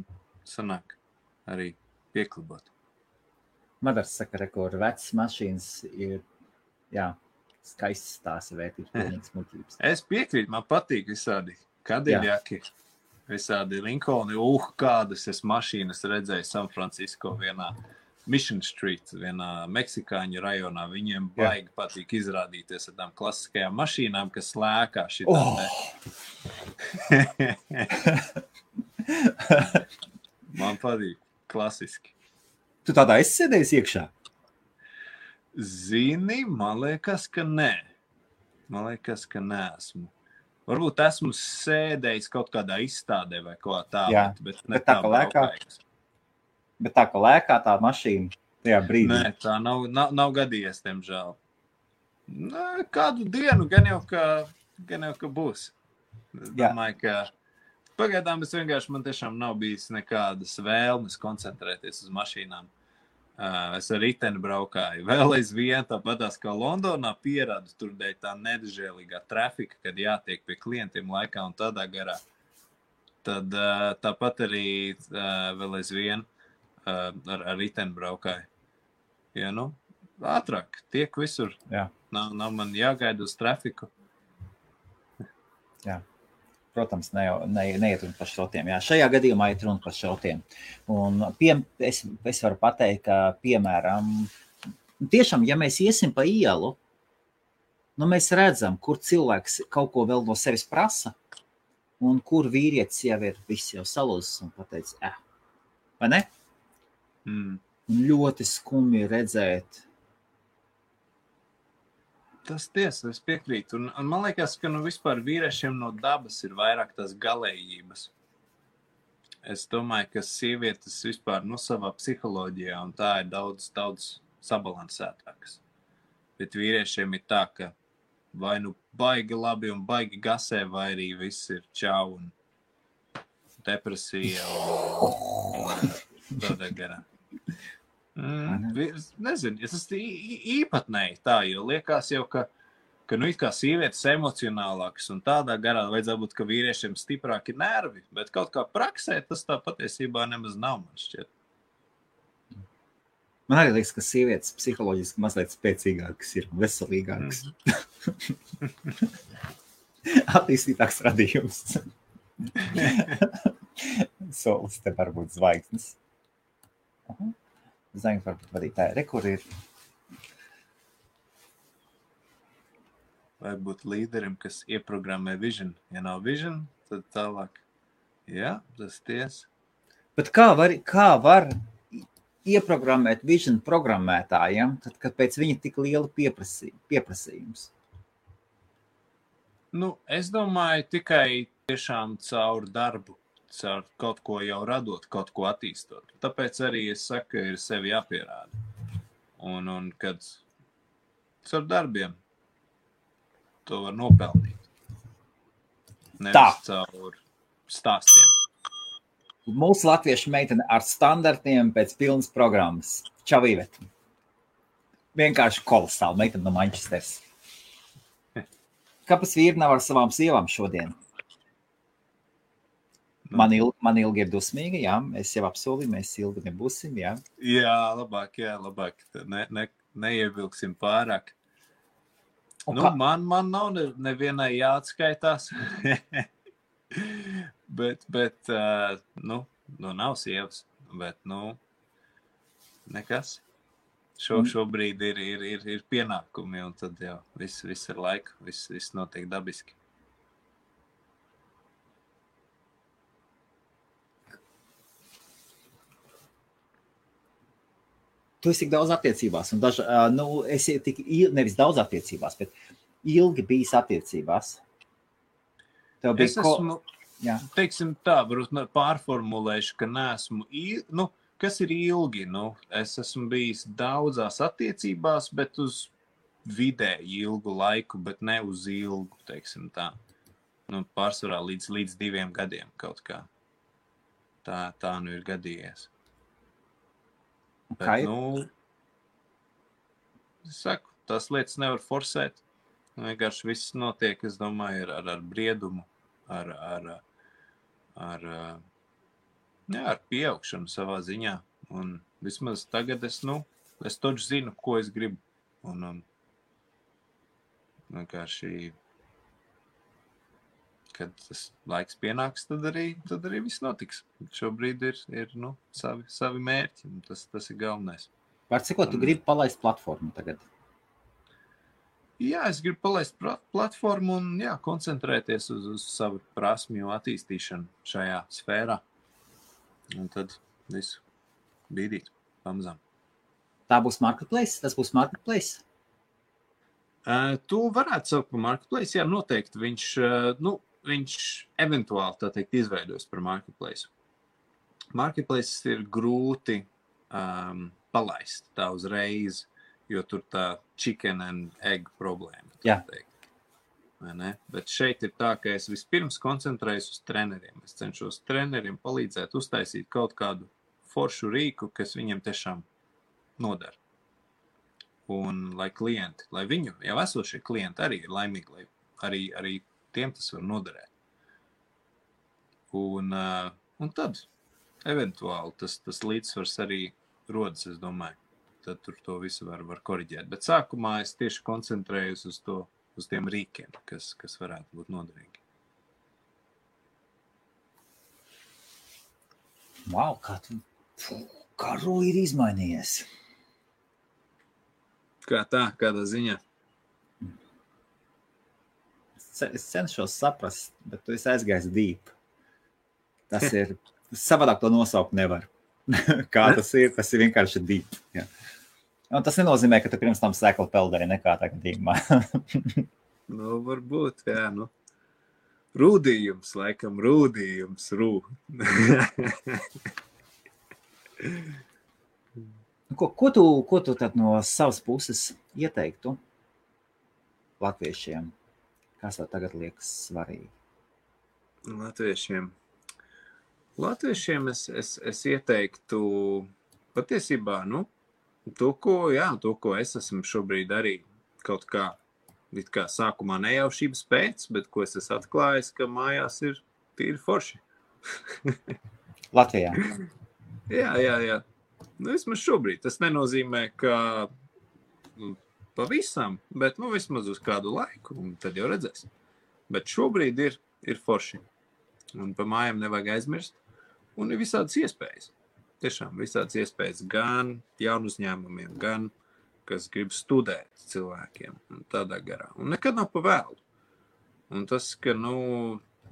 sanāk arī pieklibot. Madars saka, ka vecas mašīnas ir, skaists tās vērtības, pilnīgas muļķības. Es piekrītu, man patīk visādi Kadiļaki, visādi Lincolni, kādas es mašīnas redzēju San Francisco vienā Mission Street, vienā meksikāņu rajonā. Viņiem baigi patīk izrādīties ar tām klasiskajām mašīnām, kas lēkā šitā. Man patīk klasiski. Tu tādā esi sēdējis iekšā? Zini, man liekas, ka nē. Neesmu. Varbūt esmu sēdējis kaut kādā izstādē vai kaut kā tā, bet tā, ka lēkā tā mašīna tajā brīdī. Nē, tā nav gadījies, diemžēl. Kādu dienu gan jau, ka būs. Domāju, ka pagaidām man tiešām nav bijis nekādas vēlmes koncentrēties uz mašīnām. Es ar riteni braukāju. Vēl aizvien tāpatās kā Londonā pierādu tur dēļ tā nedažēlīgā trafika, kad jātiek pie klientiem laikā un tādā garā. Tad tāpat arī vēl aizvien ar riteni braukāju. Ja, ātrāk, tiek visur. Jā. Nav man jāgaida uz trafiku. Jā. Protams, neiet runa par šrotiem. Jā, šajā gadījumā iet runa par šrotiem. Un es varu pateikt, ka, piemēram, tiešām, ja mēs iesim pa ielu, mēs redzam, kur cilvēks kaut ko vēl no sevis prasa, un kur vīrietis jau ir viss jau salūzis un pateicis, vai ne? Ļoti skumji redzēt. Tas tiesa, es piekrītu. Un man liekas, ka vispār vīriešiem no dabas ir vairāk tās galējības. Es domāju, ka sievietes vispār savā psiholoģijā, un tā ir daudz sabalansētākas. Bet vīriešiem ir tā, ka vai nu baigi labi un baigi gasē, vai arī viss ir čau un depresija un tādā garā. Nezinu, tas īpatnēji tā, jo liekas jau, ka it kā sievietes emocionālākas un tādā garā vajadzētu būt, ka vīriešiem stiprāki nervi, bet kaut kā praksē tas tā patiesībā nemaz nav, man šķiet. Man arī liekas, ka sievietes psiholoģiski mazliet spēcīgākas ir, veselīgākas. Attīstītāks radījums. Solis te var būt zvaigznes. Zvaigznes varbūt vadītāji. Kur ir? Vai būt līderim, kas ieprogrammē vision? Ja nav vision, tad tālāk. Jā, tas tiesa. Bet kā var ieprogrammēt vision programmētājiem, tad, kad pēc viņa tik liela pieprasījums? Es domāju, tikai tiešām caur darbu, caur kaut ko jau radot, kaut ko attīstot. Tāpēc arī es saku, ka ir sevi jāpierāda. Un kad caur darbiem to var nopelnīt. Nevis caur stāstiem. Mūsu latviešu meitene ar standartiem pēc pilnas programmas. Čau, Iveta. Vienkārši kolosāli meitene no Manchesteras. Kāpēc vīri nav ar savām sievām šodien? Man ilgi ir dusmīga, jā. Es jau apsolīju, mēs ilgi nebūsim, jā. Jā, labāk. Neievilksim pārāk. Man nav nevienai jāatskaitās. bet nav sievas, bet, nekas. Šobrīd ir pienākumi, un tad jau viss ir laika, viss notiek dabiski. Tu esi tik daudz attiecībās, un esi tik nevis daudz attiecībās, bet ilgi bijis attiecībās. Es esmu, teiksim tā, varbūt pārformulēšu, ka neesmu, kas ir ilgi, es esmu bijis daudzās attiecībās, bet uz vidēji ilgu laiku, bet ne uz ilgu, teiksim tā. Pārsvarā līdz 2 gadiem kaut kā. Tā ir gadījies. Bet, es saku, tās lietas nevar forsēt. Vienkārši viss notiek, es domāju, ar briedumu, ar pieaugšanu savā ziņā. Un vismaz tagad es taču zinu, ko es gribu. Un vienkārši, kad tas laiks pienāks, tad arī viss notiks. Šobrīd ir savi mērķi, un tas ir galvenais. Var cikot, tu gribi palaist platformu tagad? Jā, es gribu palaist platformu un koncentrēties uz savu prasmju attīstīšanu šajā sfērā. Un tad visu bīdīt pamazām. Tā būs marketplace? Tas būs marketplace? Tu varētu saukt par marketplace, jā, noteikti. Viņš eventuāli, tā teikt, izveidos par marketplace. Marketplace ir grūti palaist tā uzreiz, jo tur tā chicken and egg problēma. Jā. Bet šeit ir tā, ka es vispirms koncentrējos uz treneriem. Es cenšos treneriem palīdzēt uztaisīt kaut kādu foršu rīku, kas viņiem tiešām nodara. Un lai viņu jau esošie klienti arī ir laimīgi, lai arī tiem tas var noderēt. Un tad eventuāli tas līdzsvars arī rodas, es domāju. Tad tur to visu var koriģēt. Bet sākumā es tieši koncentrējos uz tiem rīkiem, kas varētu būt noderīgi. Wow, kā Roja ir izmainījies. Kā tā, kādā ziņā? Es cenšos saprast, bet tu esi aizgājis deep. Tas ir, savādāk to nosaukt nevar. Kā tas ir vienkārši deep. Jā. Un tas nenozīmē, ka tu pirms tam sēkli peldēji nekā tā gadījumā. Varbūt, jā. Rūdījums, laikam, rūdījums. Ko tu tad no savas puses ieteiktu latviešiem? Kas tev tagad liekas svarīgi? Latviešiem es ieteiktu patiesībā, to, ko es esmu šobrīd arī kaut kā, it kā sākumā nejaušības pēc, bet ko es esmu atklājis, ka mājās ir tīri forši. Latvijā? Jā. Vismaz šobrīd. Tas nenozīmē, ka pavisam, bet vismaz uz kādu laiku, un tad jau redzēs. Bet šobrīd ir forši. Un pa mājām nevajag aizmirst. Un ir visādas iespējas. Tiešām visādas iespējas gan jaunu uzņēmumiem, gan, kas grib studēt cilvēkiem un tādā garā. Un nekad nav pa vēlu. Un tas, ka,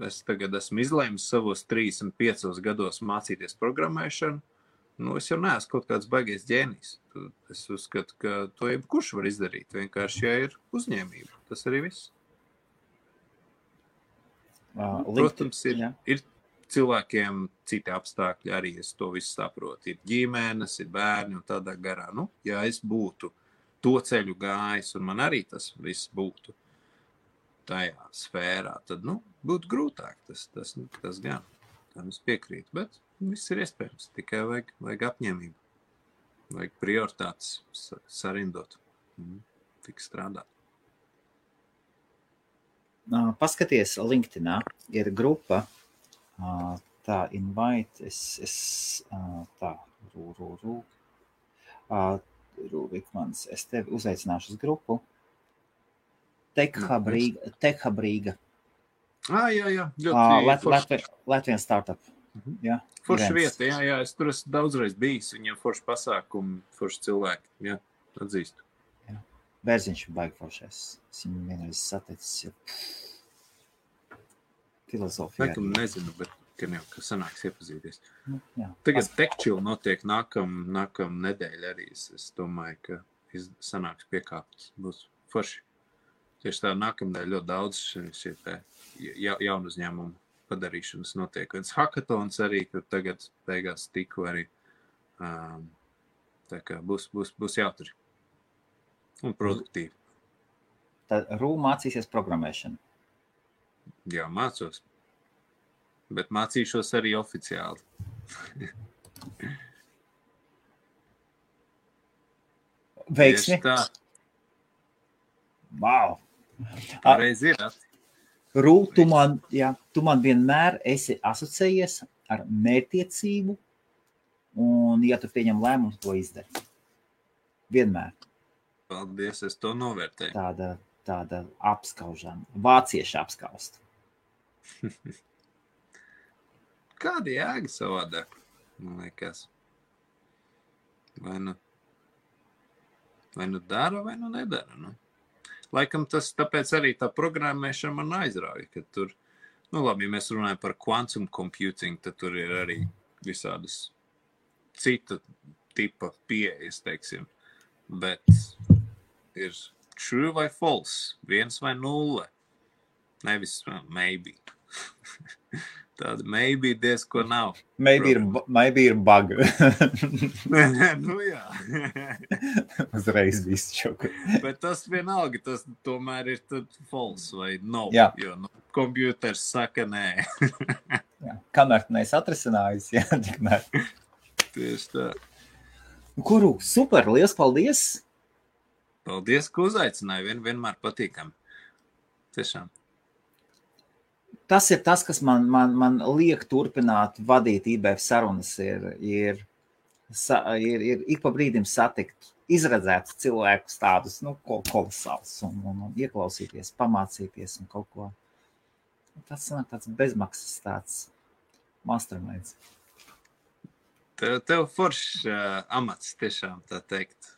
es tagad esmu izlēmis savos 35 gados mācīties programmēšanu, es jau neesmu kaut kāds baigais ģēnijs. Es uzskatu, ka to jebkurš var izdarīt. Vienkārši, ja ir uzņēmība. Tas arī viss. Protams, ir cilvēkiem citi apstākļi, arī es to visu saprotu. Ir ģimenes, ir bērni un tādā garā. Ja es būtu to ceļu gājis un man arī tas viss būtu tajā sfērā, tad, būtu grūtāk. Tas gan. Tam es piekrītu, bet viss ir iespējams. Tikai vajag apņēmību. Vajag prioritātes sarindot. Tik strādāt. Paskaties, LinkedInā ir grupa, tā invite, Rūvikmans, es tevi uzaicināšu uz grupu. Tekhabrīga. Jā. Latvijas startup. Jā, forša vieta, jā, es tur esmu daudzreiz bijis, viņiem forši pasākumi, forši cilvēki, jā, atzīstu. Jā. Bērziņš ir baigi foršais, es viņu vienreiz sateicis, filozofijā. Laikam nezinu, bet gan jau, ka sanāks iepazīties. Jā. Tagad Techchill notiek nākam nedēļa arī, es domāju, ka sanāks piekāptas, būs forši. Tieši tā nākamdēļ ļoti daudz šie jaunu uzņēmumu padarīšanas notiek. Viens hackatons arī, kur tagad beigās tiku arī. Tā kā būs jautri un produktīvi. Tad mācīsies programmēšanu? Jā, mācos. Bet mācīšos arī oficiāli. Veiksmi? Tā. Wow! Reiz ir. Rū, tu man vienmēr esi asociējies ar mērķtiecību, un, ja tu pieņem lēmumu, to izdari. Vienmēr. Paldies, es to novērtēju. Tāda apskaužana. Vācieši apskaust. Kāda jēga savādāk, man liekas? Vai nu dara, vai nu nedara, Laikam tas tāpēc arī tā programmēšana man aizrauja, ka tur, labi, ja mēs runājam par quantum computing, tad tur ir arī visādas cita tipa pieejas, teiksim, bet ir true vai false, 1 vai 0, nevis maybe. Tāda maybe diezko nav. Maybe ir bug. Jā. Uzreiz viss čoku. Bet tas vienalga, tas tomēr ir tad false vai no, jā. Jo kompjuters saka nē. Jā. Kamēr tu neesi atrisinājis, tikmēr. Tieši tā. Kuru, super, liels paldies! Paldies, ka uzaicināji, vienmēr patīkam. Tiešām. Tas ir tas, kas man liek turpināt vadīt IBF sarunas, ir ik pa brīdim satikt, izredzēt cilvēkus tādus, kolosāls un ieklausīties, pamācīties un kaut ko. Tas ir tāds bezmaksas tāds masterminds. Tev foršs amats tiešām, tā teikt,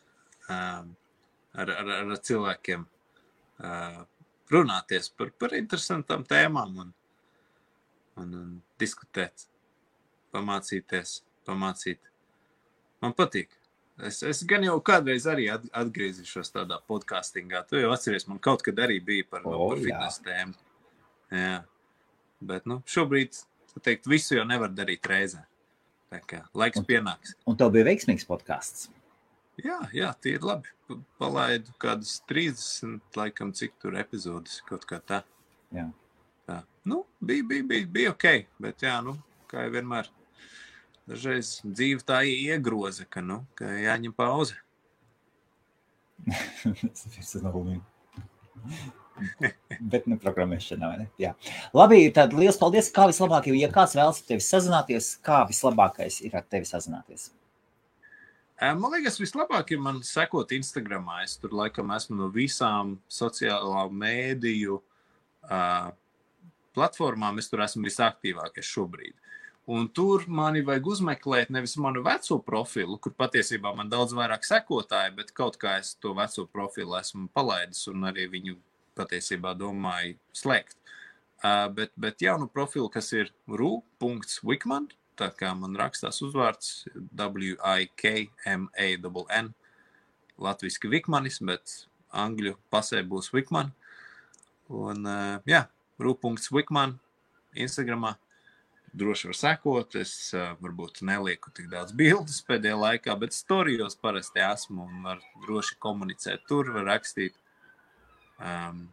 ar cilvēkiem runāties par interesantām tēmām un diskutēt, pamācīt. Man patīk. Es gan jau kādreiz arī atgriezīšos tādā podkastingā. Tu jau atceries, man kaut kad arī bija par fitness tēmu. Jā. Bet, šobrīd, teikt, visu jau nevar darīt reizē. Tā kā laiks pienāks. Un tev bija veiksmīgs podcasts? Jā, tie ir labi. Palaidu kādas 30, laikam, cik tur epizodes, kaut kā tā. Jā. Tā. Bija ok, bet jā, kā jau vienmēr, dažreiz dzīve tā iegroza, ka jāņem pauze. Bet programmēšanā, vai ne? Jā. Labi, tad liels paldies. Kā vislabāk, ja kāds vēlas ar tevi sazināties, kā vislabākais ir ar tevi sazināties? Man liekas, vislabāk ir man sekot Instagramā. Es tur laikam esmu no visām sociālā mēdīju platformām. Es tur esmu visaktīvākais šobrīd. Un tur mani vajag uzmeklēt nevis manu veco profilu, kur patiesībā man daudz vairāk sekotāji, bet kaut kā es to veco profilu esmu palaidis un arī viņu patiesībā domāju slēgt. Bet jaunu profilu, kas ir ru.wikman, tā kā man rakstās uzvārds WIKMANN, latviski Vikmanis, bet angļu pasē būs Wikman. Un ru.wikman Instagramā droši var sekot. Es varbūt nelieku tik daudz bildes pēdējā laikā, bet storijos parasti esmu un var droši komunicēt tur, var rakstīt. Un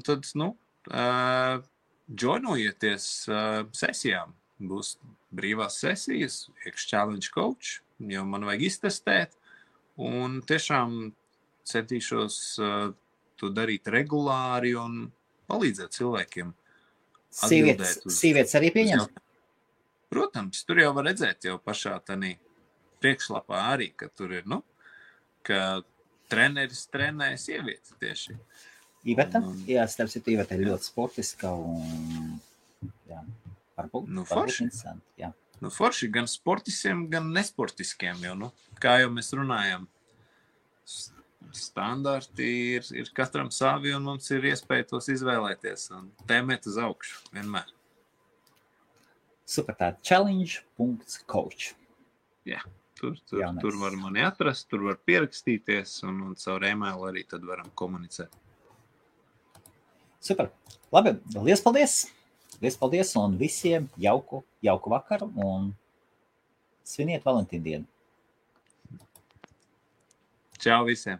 tad, joinojieties sesijām. Būs brīvās sesijas, Challenge Coach, jo man vajag iztestēt. Un tiešām centīšos to darīt regulāri un palīdzēt cilvēkiem. Sievietes arī pieņem? Protams, tur jau var redzēt jau pašā tanī priekšlapā arī, ka tur ir, ka treneris trenē sievietes tieši. Iveta? Jā, starp citu, Iveta ir ļoti sportiska un varbūt interesanti. Jā. Forši gan sportiskiem, gan nesportiskiem jau, kā jau mēs runājam. Standarti ir katram savi un mums ir iespēja tos izvēlēties un tēmēt uz augšu vienmēr. Super, tā challenge.coach. Jā, tur var mani atrast, tur var pierakstīties un caur e-mailu arī tad varam komunicēt. Super, labi, liels paldies! Liels paldies un visiem jauku vakaru un sviniet Valentīnu dienu. Čau visiem!